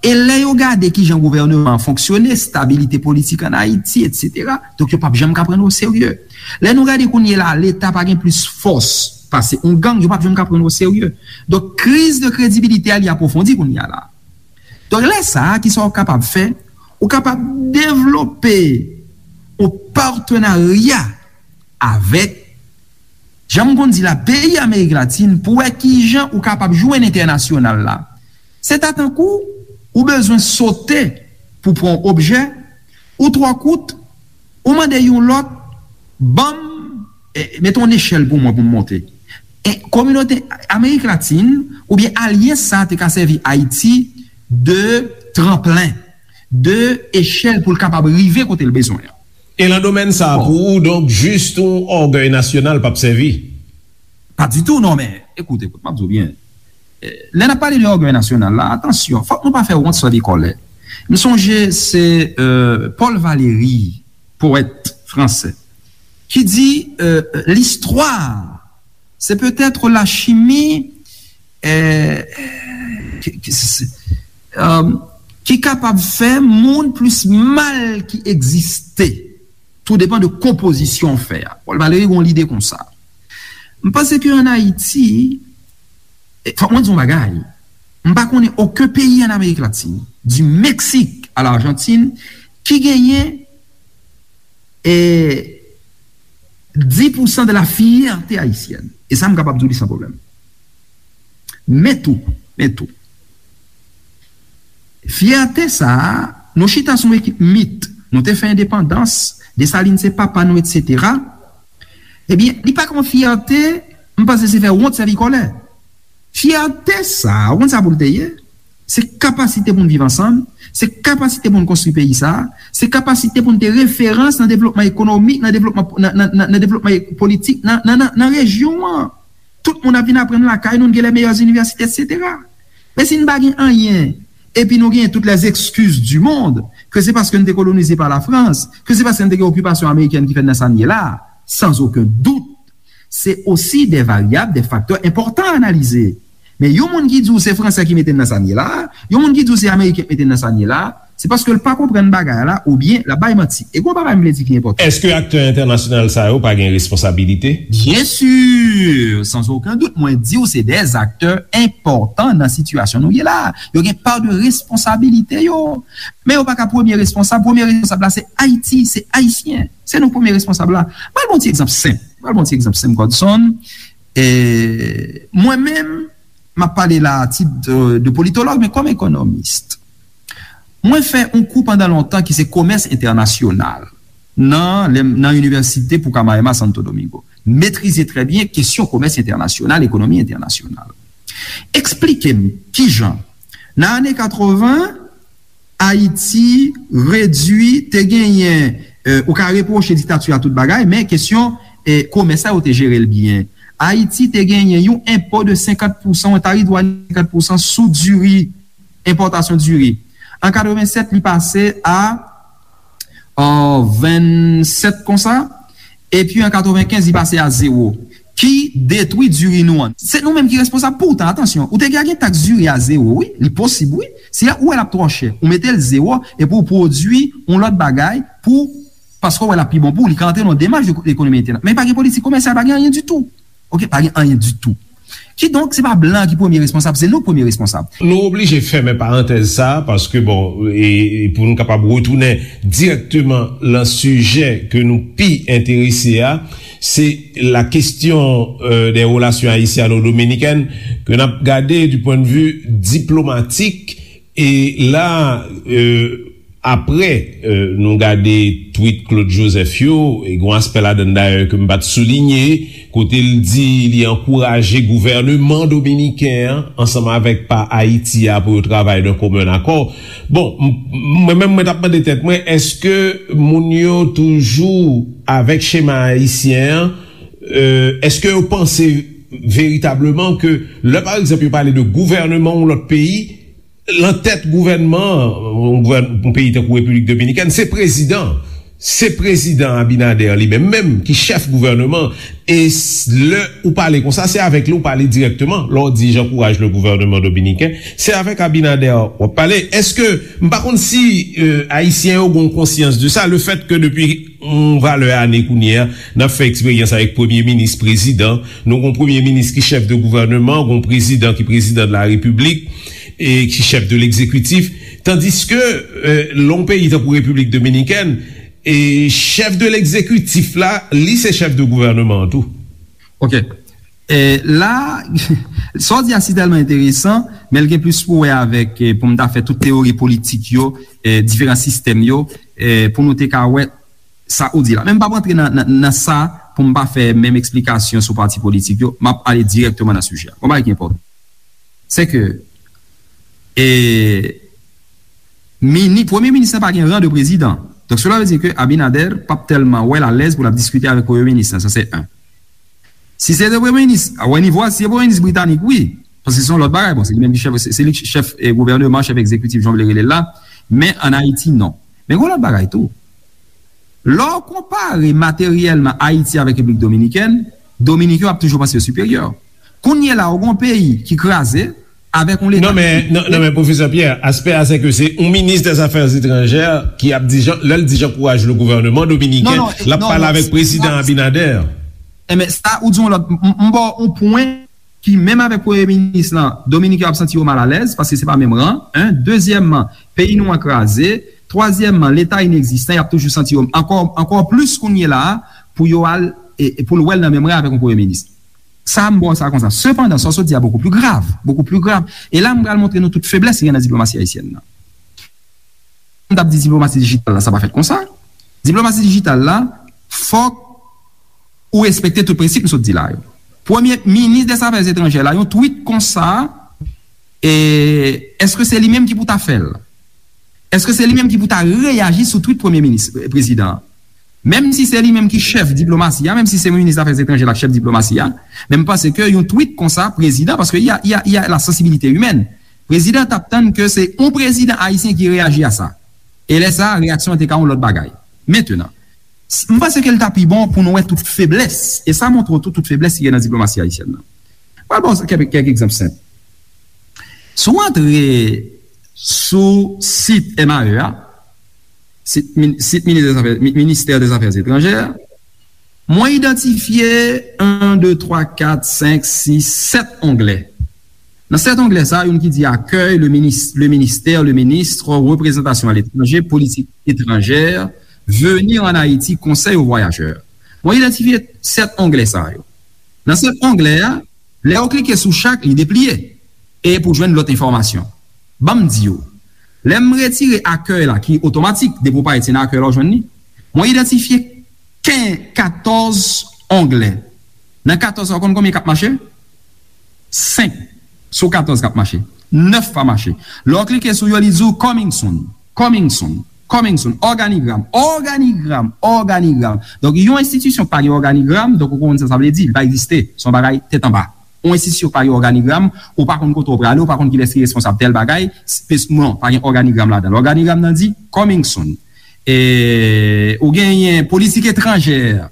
E lè yo gade kijan gouvènman an fonksyone, stabilite politik ann Ayiti, etsetera, donk yo p ap janm ka pran nou oserye. Lè nou gade kounye la, Leta pa gen plis fòs pase yon gang, yo p ap janm ka pran nou oserye. Donk, kriz de kredibilite a, li apwofondi kounye a la. Donk, lè sa a, kisa w kapab fè? Ou kapab devlope yon patenarya avèk, jan m konn di la, peyi Amerik Latin pou wè kijan ou kapab jwenn entènasyonal la. Se ta tankou ou bezwen sote pou pran yon objè, ou twò kout, ou mande yon lòt, ban m, e, mete yon nechèl pou mwen pou m monte. E kominote Amerik Latin oubyen alyans sa a te ka sèvi Ayiti de tranplen, de echèl pou l kapab rive kote l bezwen an. E nan domèn sa a, bon, pou ou, donk, jis yon ògèy nasyonal p ap sèvi? Pa ditou, non, men, ekout, ekout, m ap di w byen. Eh, lè n ap pale de ògèy nasyonal la, atansyon, fòk nou pa fè wont sèvi kòlè. M sonje se, euh, Paul Valéry, powèt fransè, ki di, euh, l'histoire, c'est peut-être la chimie, euh, ki, ki, se, se, euh, ki kapab fè moun plis mal ki egziste. Tou depann de konpozisyon fè a. Paul Valéry gen yon lide konsa. M panse ke ann Ayiti, e, fòk mwen di yon bagay. M pa konnen okenn peyi ann Amerik Latin, du Mexique à l'Argentine, ki genyen, e, dix pour cent de la fierté haïtienne. E sa, m kapab di w li san pwoblèm. Men tou, men tou. Fyète sa a, nou chita sou yon ekip mit, nou te fè endepandans, Desalin se papa nou, etsetera. Ebyen, li pa ka yon fyète, m panse se fè wont sèvi kòlè. Fyète sa a, ou konn sa pou l te ye? Se kapasite pou n viv ansanm, se kapasite pou n konstwi peyi sa a, se kapasite pou n te referans nan devlopman ekonomik, nan devlopman, nan, nan, nan, nan devlopman politik, nan, nan, nan, nan rejyon an. Tout moun ap vin aprann lakay nou, n gen les meilleures universités, etsetera. Men si n pa gen anyen, epi nou genyen toutes les excuses du monde, ke se paske n te kolonize pa Lafrans, ke se paske n te gen okipasyon amerikèn ki fè n nan sa n ye la, sans aucun doute, se osi des variables, des facteurs importants à analyser. Men yon moun ki di w se Fransè ki mete n nan sa n ye la, yon moun ki di w se Ameriken ki mete n nan sa n ye la, se paske l pa konprann bagay la, oubyen l ap bay manti. E gon bagay m vle di ki enpòtan. Èske aktè entènasyonal sa yo pa gen responsabilite? Bien sûr, sans aucun doute, mwen di w se des acteurs importants nan sitiyasyon nou ye la. Yo gen pa de responsabilite yo. Men yo pa ka premye responsab. Premye responsab la se Ayiti, se Ayisyen. Se nou premye responsab la. Mwen ba w yon ti egzanp senp. Mwen ba w yon ti egzanp senp, Godson. E, mwen menm, m ap pale la a tit de, de politològ, men kòm ekonomis. Mwen fè yon kou pandan lontan ki se komès entènasyonal nan, nan Inivèsite Pucamaima Santo Domingo. Metrize trè byen kesyon komès entènasyonal, ekonomi entènasyonal. Eksplike m kijan, nan ane katreven, Ayiti redui, te genyen, euh, ou ka repwoche diktati a tout bagay, men kesyon, eh, komès la, yo te jere l byen. Ayiti te genyen yon enpo de senkant pousan, yon tarif dwàn senkant pousan sou diri, enpòtasyon diri. An katrevensèt, li pase a, euh, vennsèt konsa. Epi an katrevenkenz, li pase a zewo. Ki detwi diri nou an. Se nou menm ki responsab. Poutan, atansyon, ou te ka gen taks diri a zewo, wi. Li posib, wi. Si ou wè l ap twò chè, ou mete l zewo, epi ou pwodui yon lòt bagay pou, paske ou wè l ap pi bon pou ou, li ka antre nan yon demach de ekonomi entènasyonal. Men pa gen politik komèsyal, pa gen anyen ditou. Oke, pa gen anyen ditou. Kidonk, se pa blan ki premye responsab, se nou k premye responsab. Nou oblije fèmen parantèz sa a, paske, bon, e, e pou nou kapab retounen dirèkteman lan sijè ke nou pi enterese a, se la question, euh, des relations haïtiano-dominicaines, ke n ap gade du point de vue diplomatique, e la, euh, Apre, euh, nou gade tweet Claude Joseph yo, e gen yon aspè ladan l dayè ke m pa t soulinye, kote l di li ankouraje gouvèneman dominiken an, ansanm avèk pa Ayiti a, pou yo travay d'un commun accord. Bon, m, mwen menm, mwen t ap mande tèt mwen, èske moun yo toujou avèk chema ayisyen an? Euh, èske yo panse veritableman ke lè, pa egzanp, yo pale de gouvèneman yon lòt peyi, lan tèt gouvènman, yon gouvèn-, yon peyi tankou Repiblik Dominikèn, se prezidan. Se prezidan Abinader li menm menm ki chèf gouvènman. E s-, lè ou pale konsa, se avèk li ou pale dirèkteman. Lè w di j'encourage le gouvernement dominicain, se avèk Abinader w ap pale. Èske, m pa konn si, euh, Ayisyen yo gen konsyans de sa, le fait que depi yon valè ane kounye a, n ap fè eksperyans avèk premye minis, prezidan, nou gen yon premye minis ki chèf de gouvènman, gen yon prezidan ki prezidan de la repiblik, e ki chèf de legzekitif, tandiske, euh, lè yon peyi tankou Repiblik Dominikèn, e chèf de legzekitif la, li se chèf de gouvènman an tou. Ok. E la, sa w di a si tèlman enteresan, men l gen plis pou wè avèk, e, pou m ta fè tout teyori politik yo, e, diferan sistèm yo, e, pou nou te ka wè sa ou di la. Men m p ap rantre nan, nan, nan sa pou m pa fè menm eksplikasyon sou pati politik yo, m ap ale dirèkteman nan sijè a. Bon, bagay ki enpòtan, se ke, e, mini-, premye minis lan pa gen ran de prezidan. Donk, cela veut dire ke Abinader p ap tèlman wè l alèz pou l ap diskite avèk premye minis lan. Sa, se en. Si se te premye minis, a wè nivo a, si se premye minis britanik, wi. Paske se yon lòt bagay. Bon, se li menm ki chèf, se, se li ki chèf, e, gouvèneman, chèf egzekitif, jan w vle rele l la. Men ann Ayiti, non. Men gen yon lòt bagay tou. Lè w konpare materyèlman Ayiti avèk Repiblik Dominikèn, Dominiken yo ap toujou panse yo siperyè. Kounye la, ou gen yon peyi ki kraze avèk yon leta. Non, men, non, non, men, Pwofesè Pierre, aspè a, se ke se yon minis dè zafè etranjè ki ap di jan, lè l di j'encourage le gouvernement dominicain, non, non, l ap non, pale non, avèk prezidan non. Abinader. Enben, sa, ou di yon lòt, m, m, m ba w yon pwen ki, menm avèk premye minis lan, Dominiken yo ap santi yo malalèz, paske se pa menm ran, en. Dezyèmman, peyi nou an kraze. Twazyèmman, leta inegzistan, y ap toujou santi yo ankò, ankò plis kounye la a, pou yo al, e, e pou l wè l nan menm ran avèk yon premye minis. Sa, m ba w sa konsa. Sepandan, sa w sot di a beaucoup plus grave, beaucoup plus grave. E la, m pral montre nou tout feblès ki gen nan diplomasi ayisyèn nan. M t ap di diplomasi dijital la, sa pa fèt konsa. Diplomasi dijital la, fòk ou respekte tout prensip m sot di la yo. Premye minis dè zafè etranjè la, yon tweet konsa, e, èske se li menm ki pou ta fè l? Èske se li menm ki pou ta reyaji sou tweet premye minis, e, prezidan an? Menm si se li menm ki chèf diplomasi a, menm si se minis zafè etranjè la k chèf diplomasi a, men m panse ke yon tweet konsa, prezidan, paske y a, y a, y a la sensibilité humaine. Prezidan t ap tann ke se yon prezidan ayisyen ki reyaji a sa. E lè sa a, reyaksyon an te ka yon lòt bagay. Mentenan, s-, m panse ke l ta pi bon pou nou wè tout feblès. E sa montre w tou tout feblès ki gen nan diplomasi ayisyèn nan. Pral ba w kèk, kèk egzanp senp. Si w antre sou sit M A E a, sit, min-, sit Minis dè Zafè, Mi-, Ministè dè Zafè Etranjè, mwen idantifye en, de, twa, kat, senk, sis, sèt onglè. Nan sèt onglè sa, youn ki di accueil, le minis-, le ministère, le ministre, représentation à l'étranger, politique étrangère, venir en Haïti, conseil aux voyageurs. Mwen idantifye sèt onglè sa yo. Nan sèt onglè a, lè w klike sou chak, li depliye. E pou jwenn lòt enfòmasyon. Ban m di w, lè m retire accueil la, ki otomatik, depi w parèt, se nan accueil la w jwenn li. Mwen idantifye ken-, katòz onglè. Nan katòz sa, w konn konbyen k ap mache? Senk sou katòz k ap mache. Nèf pa mache. Lè w klike sou yo, li di w coming soon, coming soon, coming soon. Òganigram, òganigram, òganigram. Donk, yon enstitisyon k pa gen òganigram, donk ou konn sa sa vle di, li pa egziste. Se yon bagay tèt anba. Yon enstitisyon k pa gen òganigram, ou pa konn kote w prale, ou pa konn kilès ki responsab tèl bagay, spes-, non, pa gen òganigram ladan l. Òganigram nan di coming soon. E, ou genyen politik etranjè,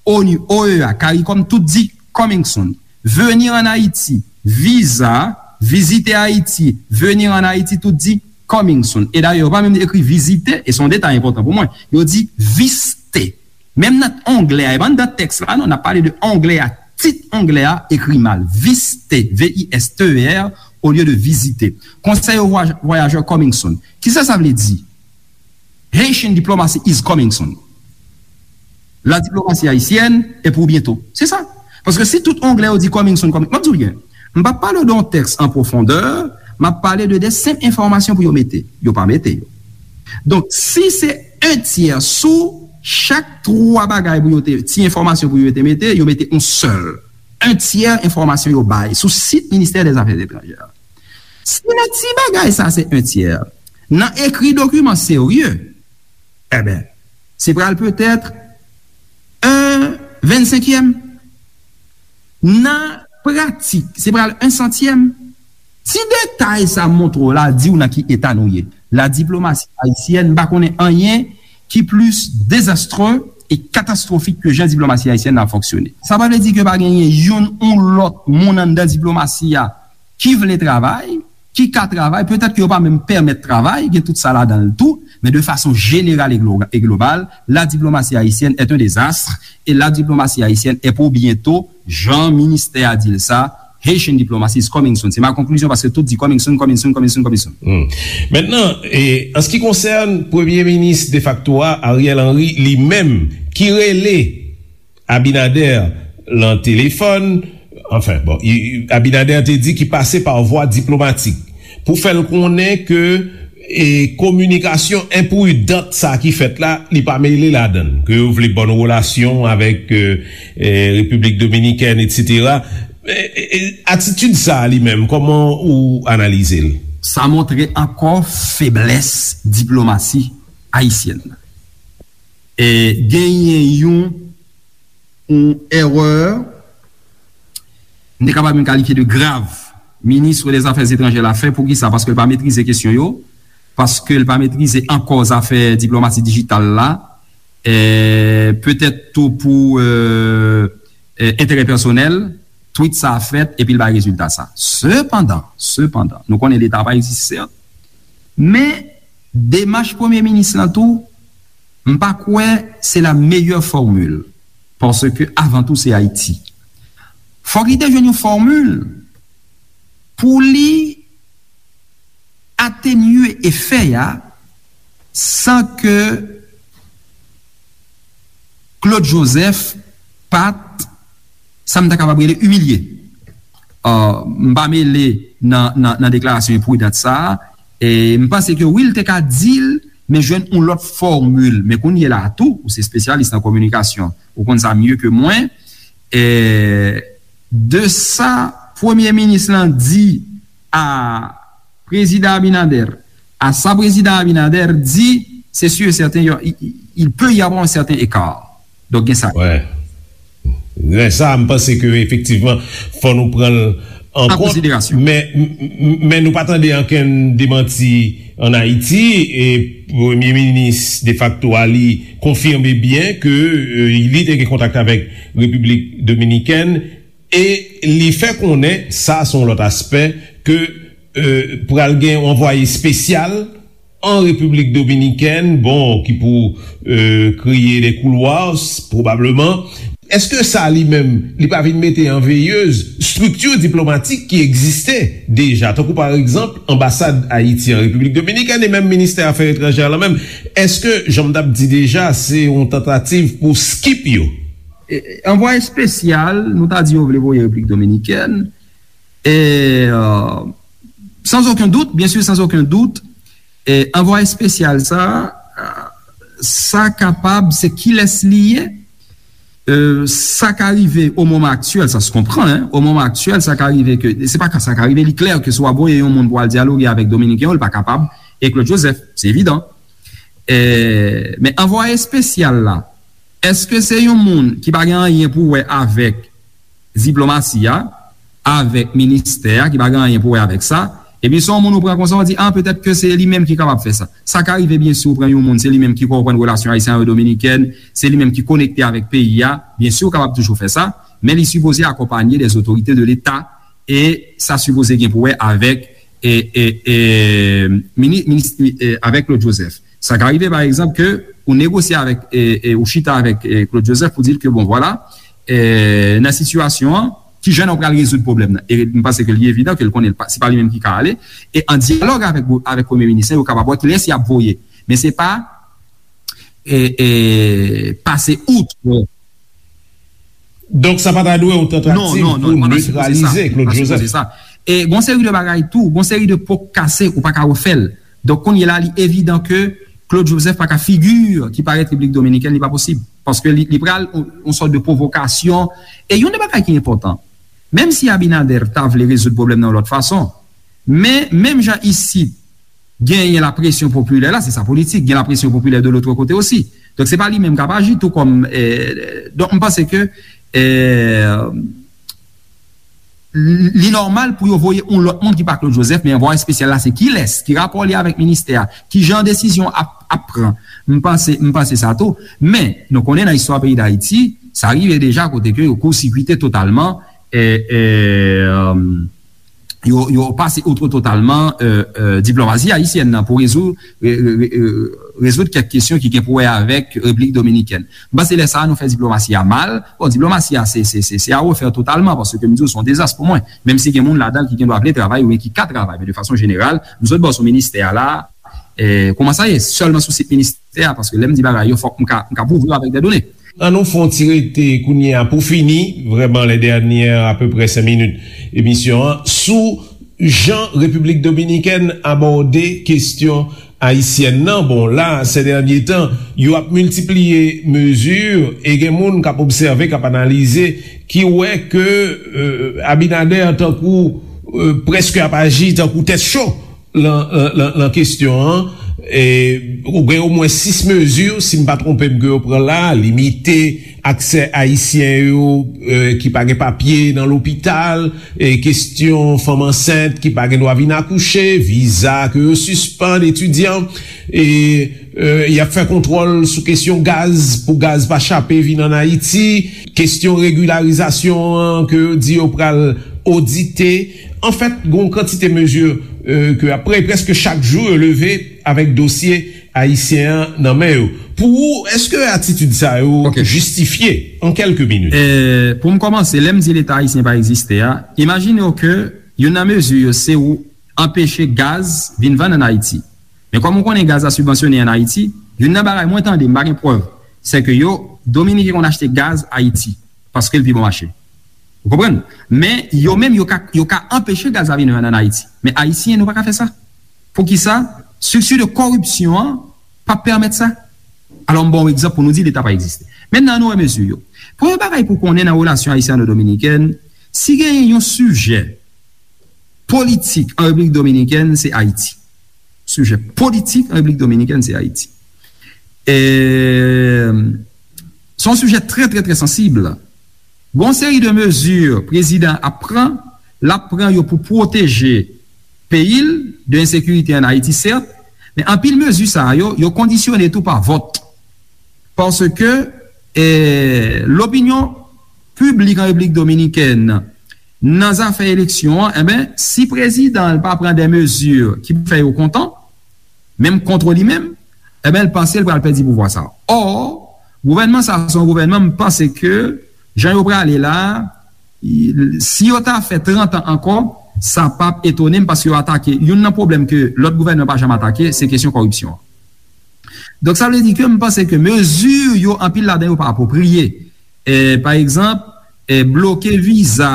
onu, O E A, CARICOM, tout di coming soon. Venir en Haïti, viza, visiter Haïti, venir en Haïti, tout di coming soon. E dayè, yo pa menm ekri vizite, e se yon detay enpòtan pou mwen. Yo di viste. Menm nan onglè a, e pa anndan tèks la, non, n ap pale de onglè a, tit onglè a ekri mal. Viste, V I S T E R, olye de visiter. Conseil aux voyageurs coming soon. Kisa sa vle di? Haitian diplomacy is coming soon. La diplomatie haïtienne est pour bientôt. Se sa. Paske si tout onglè yo di coming soon, coming, m ap di w byen, m p ap pale w de yon tèks an pwofondè, m ap pale de de senp enfòmasyon pou yo mete. Yo pa mete yo. Donk, si se en tyè sou chak twa bagay pou yo te, ti enfòmasyon pou yo te mete, yo mete yon sèl. En tyè enfòmasyon yo bay sou sit Ministè dè Zafè Etranjè. Si nan ti bagay sa se en tyè, nan ekri dokiman serye, enben, se pral petèt en vennsenkyèm. Nan pratik, se pral en santyèm. Ti detay sa montre w la, di w nan ki eta nou ye. La diplomasi ayisyèn, m pa konnen anyen ki plis dezastre e katastwofik ke jan diplomasi ayisyèn nan ap fonksyone. Sa pa vle di ke pa genyen youn ou lòt moun anndan diplomasi a ki vle travay, ki ka travay, petèt ke yo pa menm pèmèt travay, gen tout sa ladan l tou, men de fason jeneral e glo-, e global, la diplomasi ayisyèn est un désastre, et la diplomasi ayisyèn est pour bientôt, jan ministè a di l sa, Haitian diplomacy is coming soon. Se ma conclusion, paske tout di coming soon, coming soon, coming soon, coming soon. Hmm. Mentnan, e, an se ki konsène premye minis defakto a, Ariel Henry, li menm, ki rele Abinader lan telefòn, anfen, bon, i- i- Abinader te di ki pase pa vwa diplomatik pou fè l konnen ke e kominikasyon enpridant sa ki fèt la, li pa mele ladan l, ke yo vle bòn relasyon avèk e, e, Repiblik Dominikèn, etsetera. E, e, e, atitid sa a li menm, kòman ou analize l? Sa montre ankò feblès diplomasi ayisyèn nan. E genyen yon, yon erè, m te kapab menm kalifye de grav, minis dèzafè etranjè la fè. Poukisa? Paske l pa metrize kesyon yo, paske l pa metrize ankò zafè diplomasi dijital la, e petèt tou pou e, e, enterè pèsonèl, tweet sa a fèt epi l bay rezilta sa. Sepandan, sepandan, nou konnen Leta pa egziste, sèt, men demach premye minis lan tou, m pa kwè se la meyè fòmil, paske avan tou se Ayiti. Fòk li te jwenn yon fòmil pou li atenye efè a san ke Claude Joseph pa t, sa m ta kapab rele, imilye. M pa mele nan, nan, nan deklarasyon enpridant sa a, e m panse ke wi, l te ka di l, men jwenn yon lòt fòmil. Men kounye la a tou, ou se espesyalis nan kominikasyon, ou konn sa mye ke mwen, e de sa premye minis lan di a Prezidan Abinader, a sa Prezidan Abinader di, se si e sèten, il peut y avoir un certain écart. Donk, gen sa. Wè. Gen sa, m panse ke efektivman, fò nou pran l an kont. Men, men nou pa tande ankenn demanti ann Ayiti, e premye minis defakto a li konfime byen ke e, li te gen kontak avèk Repiblik Dominikèn, e li fè konnen, sa se yon lòt aspè, ke e, pral gen yon anvwaye espesyal an Repiblik Dominikèn, bon, ki pou e, kreye de koulwa, pwobableman. Èske sa li menm, li pa vin mete an veyez estrikti diplomatik ki egziste deja, tankou pa egzanp anbasad Ayiti an Repiblik Dominikèn e menm ministè afè etranjè la menm? Èske, jan m t ap di deja, se yon tantativ pou skip yo? E, anvwaye espesyal, nou ta di yo vle voye Repiblik Dominikèn, e, e, sans aucun doute, bien sûr, sans aucun doute, e, anvwaye espesyal sa, e, sa kapab, se kilès li ye, e, sa ka rive o moman aktyèl, sa se konprann, hein, o moman aktyèl, sa ka rive ke, se pa ka sa ka rive, li klè ke si w ap voye yon moun pou al dyaloge avèk Dominiken yo, li pa kapab, e Claude Joseph, se evidan. E, men anvwaye espesyal la, èske se yon moun ki pa gen anyen pou wè avèk diplomasi a, avèk ministè a, ki pa gen anyen pou wè avèk sa, epi se yon moun ou pran konsa, ou di, a, petèt ke se li menm ki kapab fè sa. Sa ka rive, byen si ou pran yon moun, se li menm ki konprann relasyon ayisyen avèk dominikèn, se li menm ki konekte avèk peyi a, byen si ou kapab toujou fè sa, men li sipoze akonpanye dè otorite de Leta, e sa sipoze gen pou wè avèk e, e, e, mini-, minis, e, avèk Claude Joseph. Sa ka rive, pa egzanp, ke ou negosye avèk, e, e, ou chita avèk e, Claude Joseph pou di l ke, bon, vwala, e, nan sitiyasyon an, ki jan nou pral rezoud pwoblèm nan? E m panse ke li evidan ke l konnen l pa, se pa li menm ki ka ale. E an dyalòg avèk, avèk premye minis lan, yo kapab wè kilès y ap voye. Men se pa e, e, pase out. Donk, sa pa ta dwe yon tantativ pou netralize Claude Joseph. E gon seri de bagay tou, gon seri de po k kase, ou pa ka refè l. Donk, kounye la, li evidan ke Claude Joseph pa ka figi ki parèt Repiblik Dominikèn, li pa posib. Paske li, li pral yon, yon sòt de pwovokasyon. E yon de bagay ki enpòtan, menm si Abinader ta vle rezoud pwoblèm nan yon lòt fason, men menm jan isit, genyen lapresyon popilè la, se sa politik, gen lapresyon popilè de lòt kote osi. Donk, se pa li menm k ap aji tou kòm, e, donk, m panse ke, e, li nòmal pou yo voye yon lòt moun ki pa Claude Joseph, men anvwaye espesyal la, se kilès, ki rapò li avèk ministè a, ki jan desizyon ap, ap pran. M panse, m panse sa tou. Men, nou konnen nan istwa peyi Dayiti, sa rive deja kote ke yo kousikite totalman, e, e, e, yo, yo pase outre totalman, e, e, diplomasi ayisyèn nan pou rezoud, re-, re-, re-, e, rezoud kèk kesyon ki gen pou wè avèk Repiblik Dominikèn. M panse lè sa a nou fè diplomasi a mal. Bon, diplomasi a se, se, se, se a refè totalman, paske m di w se yon dezas pou mwen. Menm si gen moun ladan l ki gen dwa vle travay oubyen ki ka travay, men de fason jeneral, m sot bò sou ministè a la, e, kòman sa ye, sèlman sou sit ministè a, paske lè m di bagay yo, fòk m ka, m ka pwouve yo avèk dè done. An nou fè yon ti rete kounye a pou fini, vrèman, lè dènyè apeprè senk minit emisyon an, sou jan Repiblik Dominikèn abòde kesyon ayisyèn nan. Bon, la, sè dènye tan, yo ap miltipliye mezi, e gen moun k ap obsève, k ap analize, ki wè ke, euh, Abinader tankou, euh, prèske ap aji tankou tèt cho lan, lan, lan, lan kesyon an. E, ou gen omwen sis mezi, si m pa twonpe m, ke yo pran la, limite aksè ayisyen yo, e, ki pa gen papye nan lopital, e kesyon fanm ansent ki pa gen dwa vin akouche, viza ke yo sispann, etidyan, e, e, y ap fè kontwòl sou kesyon gaz pou gaz pa chape vin ann Ayiti, kesyon regilarizasyon an ke yo di yo pral odite. Anfèt, gen yon kantite mezi, e, ke ap pre-, prèske chak jou yo leve avèk dosye ayisyen an nan men yo. Pou ou, èske atitid sa yo Ok. jistifye an kèlke minit? E, pou m kòmanse, lè m di Leta ayisyen pa egziste a, imajine w ke youn nan mezi yo se ou anpeche gaz vin vann ann Ayiti. Men kòm ou konnen gaz la sibvansyone ann Ayiti, youn nan bagay mwen tande, m pa gen prèv, se ke yo, Dominiken konn achte gaz Ayiti, paske l pi bon mache. Ou konprann? Men yo menm, yo ka, yo ka anpeche gaz la vin vann ann Ayiti. Men Ayisyen, nou pa ka fè sa. Poukisa? Strikti de kòripsyon an p ap pèmèt sa. Alò, m ba w egzanp pou nou di Leta pa egziste. Mentnan, nou wè mezi yo. Premye bagay pou konnen nan relasyon ayisyano-dominikèn, si genyen yon sijè politik an Repiblik Dominikèn, se Ayiti. Sijè politik an Repiblik Dominikèn, se Ayiti. E, se yon sijè trè, trè, trè sansib. Gon seri de mezi prezidan ap pran, l ap pran yo pou pwoteje peyi l de ensekirite ann Ayiti, sèt, men anpil mezi sa yo, yo kondisyone tou pa vòt. Paske, e, lopinyon piblik an Repiblik Dominikèn nan zafè eleksyon an, enben, si prezidan l pa pran de mezi ki pou fè yo kontan, menm kont li menm, enben, l panse l pral pèdi pouvwa sa. Ò, gouvènman sa, se yon gouvènman, m panse ke jan yo prale la, si yo ta fè trant an ankò, sa p ap etone m, paske yo atake, youn nan pwoblèm ke lòt gouvènman pa janm atake, se kesyon kòripsyon an. Donk, sa vle di ke m panse ke mezi yo, anpil ladan yo pa apwopriye. E, pa egzanp, e, bloke viza,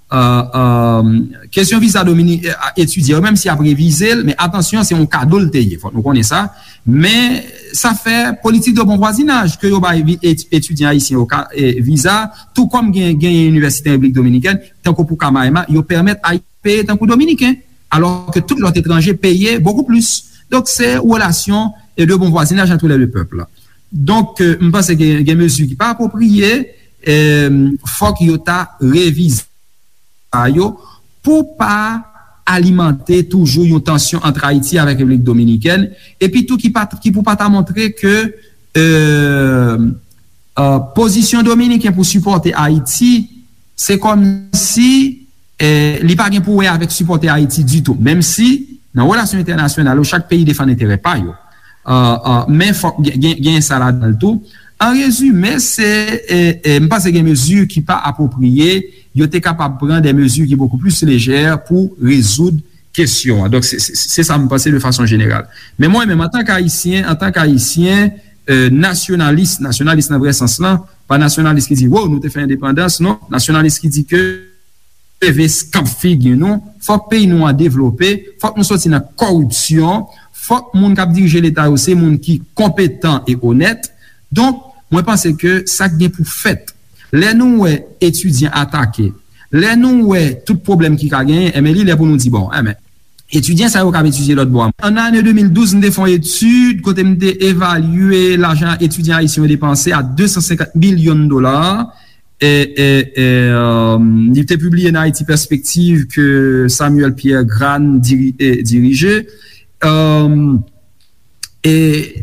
e, e, kesyon viza domini-, e, etidyan yo, menm si y ap revize l, men atansyon, se yon kado l te ye, fòk nou konnen sa. Men sa fè politik de bon vwazinaj ke yo bay vi-, et-, etidyan ayisyen yo ka, e, viza, tou kòm gen, genyen inivèsite an Repiblik Dominikèn, tankou pou Kamaema, yo pèmèt Ayisyen peye tankou Dominiken, alò ke tout lòt etranje peye bokou plis. Donk, se relasyon e de bon vwazinaj entre les deux peuples. Donk, e, m panse gen, gen mezi ki pa apwopriye, e, fòk yo ta revize sa yo pou pa alimante toujou yon tansyon ant Ayiti avèk Repiblik Dominikèn, epi tou ki pa, ki pou pa ta montre ke, e, e, pozisyon dominiken pou sipòte Ayiti, se kòmsi, e, li pa gen pou wè avèk sipòte Ayiti ditou, menm si nan relasyon entènasyonal yo, chak peyi defann enterè pa yo. E, e, men fòk gen, gen, gen sa ladan l tou. An rezime, se, e, e, m panse gen mezi ki pa apwopriye, yo te kapab pran de mezi ki bokou plis lejè pou rezoud kesyon an. Donk, se, se, se sa m panse de fason jeneral. Men mwen menm, antank Ayisyen, antank Ayisyen, e, nasyonalis, nasyonalis nan vrè sans lan, pa nasyonalis ki di, "Wo, nou te fè endepandans," non, nasyonalis ki di ke leve eskanp figi nou, fòk peyi nou an devlope, fòk nou soti nan kòripsyon, fòk moun k ap dirije Leta yo se moun ki konpetan e onèt. Donk, mwen panse ke sa k gen pou fèt, lè nou wè etidyan atake, lè nou wè tout pwoblèm ki ka genyen, enben, li lè pou nou di, bon, enben, etidyan sa yo k ap etidye lòt bò a. An ane de mil douz, m te fè yon etid kote m te evalye lajan etidyan ayisyen yo depanse a de san senkant milyon dola. E, e, e, e, li te pibliye nan Haïti Perspective ke Samuel Pierre Grane diri-, e, dirije. E, e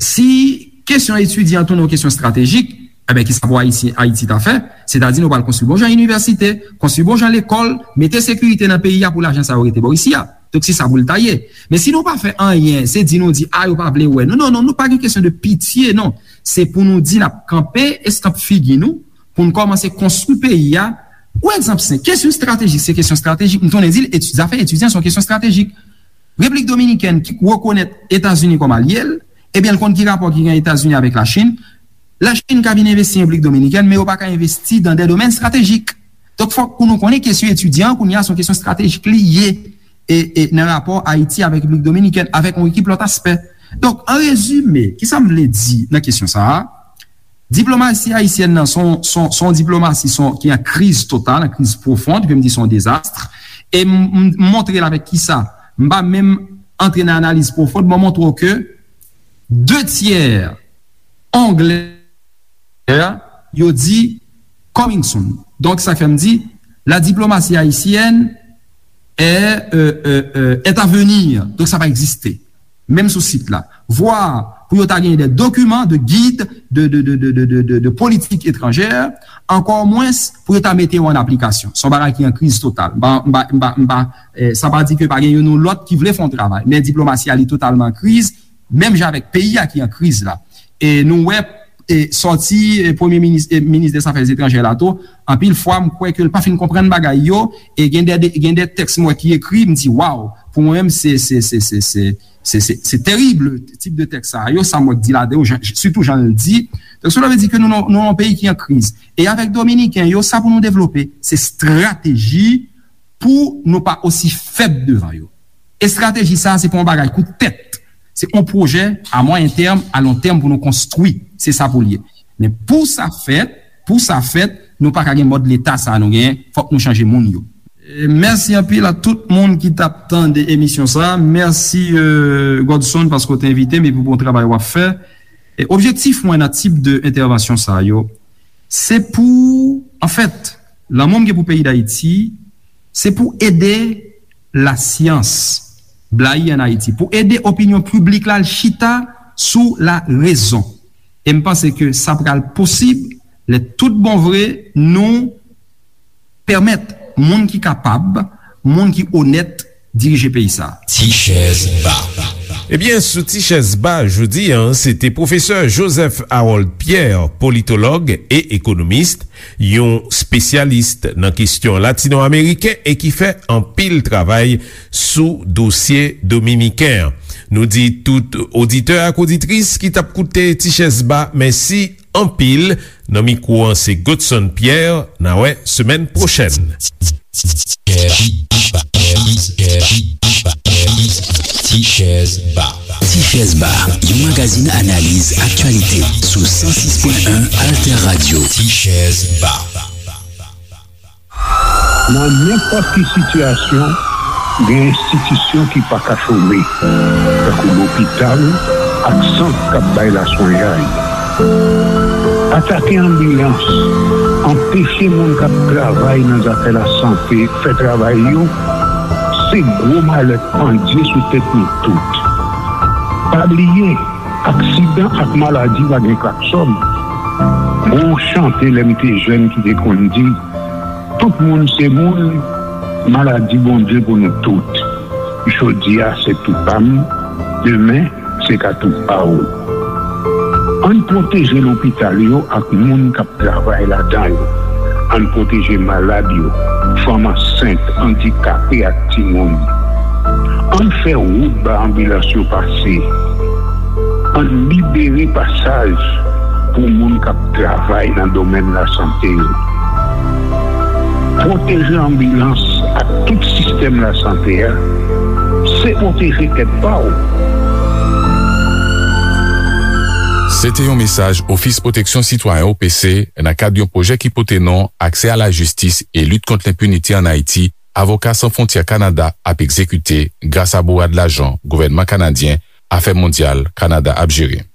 si kesyon etidyan tounen yon kesyon estratejik, enben, kisa pou Ayisyen, Ayiti ta fè? Sètadi nou pral konstwi bon jan inivèsite, konstwi bon jan lekòl, mete sekirite nan peyi a pou lajan sa yo rete bò isi a. Donk, se sa pou l ta ye. Men si nou pa fè anyen, se di nou di, a, yo pa vle wè nou. Non, non, non, nou pa gen kesyon de pitye, non. Se pou nou di n ap kanpe eskanp figi nou, pou n kòmanse konstwi peyi a. Yon egzanp senp, kesyon estratejik, se kesyon estratejik. M tounen di l, eti-, zafè etidyan se yon kesyon estratejik. Repiblik Dominikèn ki rekonèt Etazini kòm alye l, ebyen, l konn ki rapò ki gen Etazini avèk Lachin. Lachin ka vin envesti an Repiblik Dominikèn, men yo pa ka envesti dan de domèn estratejik. Donk, fòk pou nou konnen kesyon etidyan an, kounye a, se yon kesyon estratejik li ye, e, e nan rapò Ayiti avèk Repiblik Dominikèn, avèk yon ekip lòt aspè. Donk, an rezime, kisa m vle di nan kesyon sa a? Diplomasi ayisyèn nan, se yon, se yon, se yon diplomasi, se yon, ki an kriz total, an kriz pwofon, ke m di se yon dezas. E m, m, m montre l avèk kisa? M pa menm antre nan analiz pwofon, mwen montre w ke de tyè Anglè, yo di coming soon. Donk, sa fè m di, la diplomatie haïtienne est, euh, euh, euh, est à venir. Donk, sa pa egziste. Menm sou sit la. Vwa pou yo ta genyen de dokiman, de gid, de, de, de politik etranjè, ankò mwens pou yo ta mete yo an aplikasyon. Se yon bagay ki an kriz total. M pa, m pa, m pa, m pa, eh, sa pa di ke pa gen youn ou lòt ki vle fè yon travay. Men diplomasi a, li totalman an kriz, menm jan avèk peyi a ki an kriz la. E nou wè, e sòti, e premye minis, e minis dè zafè etranjè la tou, anpil fwa, m kwè ke l pa fin konprann bagay yo, e gen de, de, gen de tèks m wè ki ekri, m di, waw, pou mwen menm, se, se, se, se, se, se, se, se terib, tip de tèks sa yo, sa m wè k di ladan yo, jan, sitou jan l di. Donk, cela veut dire ke nou, nou, nou nan yon peyi ki an kriz. E avèk Dominiken yo, sa pou nou devlope, se estrateji pou nou pa osi fèb devan yo. Estrateji sa a, se pa yon bagay kout tèt. Se yon pwojè a mwayen tèm, a lon tèm pou nou konstwi. Se sa pou l ye. Men pou sa fèt, pou sa fèt, nou pa ka gen mòd leta sa a nou genyen. Fòk nou chanje moun yo. E mèsi anpil a tout moun ki t ap tande emisyon sa a. Mèsi, euh, Godson, paske w te envite m epi pou bon travay w ap fè. E objektif mwen nan tip de entèvansyon sa yo, se pou, anfèt, lanmou m gen pou peyi Dayiti, se pou ede lasyans blayi ann Ayiti, pou ede opinyon piblik la al chita sou larezon. E m panse ke sa pral posib lè tout bon vre nou pèmèt moun ki kapab, moun ki onèt dirije peyi sa a. Ti chèz ba. Ebyen, sou Ti chèz ba jodi a, se te pwofesè Joseph Harold Pierre, politològ e ekonomis, yon espesyalis nan kesyon latino-ameriken e ki fè anpil travay sou dosye dominiken an. Nou di tout oditè ak oditris ki t ap koute Ti chèz ba mèsi anpil. Nan mikwo an, se Godson Pierre. N a wè semèn pwochèn. Ti chèz ba. Ti chèz ba, yon magazin analiz aktyalite sou san sis pwen en Alter Radio. Ti chèz ba. Nan nenpòt ki sitiyasyon, gen enstitisyon ki pa ka chome, tankou lopital ak sant k ap bay laswenyay. Atake anbilans, anpeche moun k ap travay nan zafè lasante fè travay yo, se gwo malèt pandye sou tèt nou tout. Pa bliye, aksidan ak maladi pa gen klaksòn. Gon chante lè m te jèn ki te konn di, tout moun se moun, maladi Bondye pou nou tout. Jodi a se tou pa m, demen se ka tou pa w. Ann pwoteje lopital yo ak moun k ap travay ladan yo. Ann pwoteje malad yo, fanm ansent, andikape ak timoun. Ann fè wout ba anbilans yo pase. Ann libere pasaj pou moun k ap travay nan domèn lasante yo. Pwoteje anbilans ak tout sistèm lasante a, se pwoteje tèt pa w. Se te yon mesaj Ofis Pwoteksyon Sitwayen, O P C, nan kad yon pwojè ki pote non Aksè a la jistis e lit kont lenpinite ann Ayiti, Avoka San Fwontyè Kanada ap egzekite gras a bourad lajan gouvènman kanadyen, Afè Mondyal Kanada ap jere.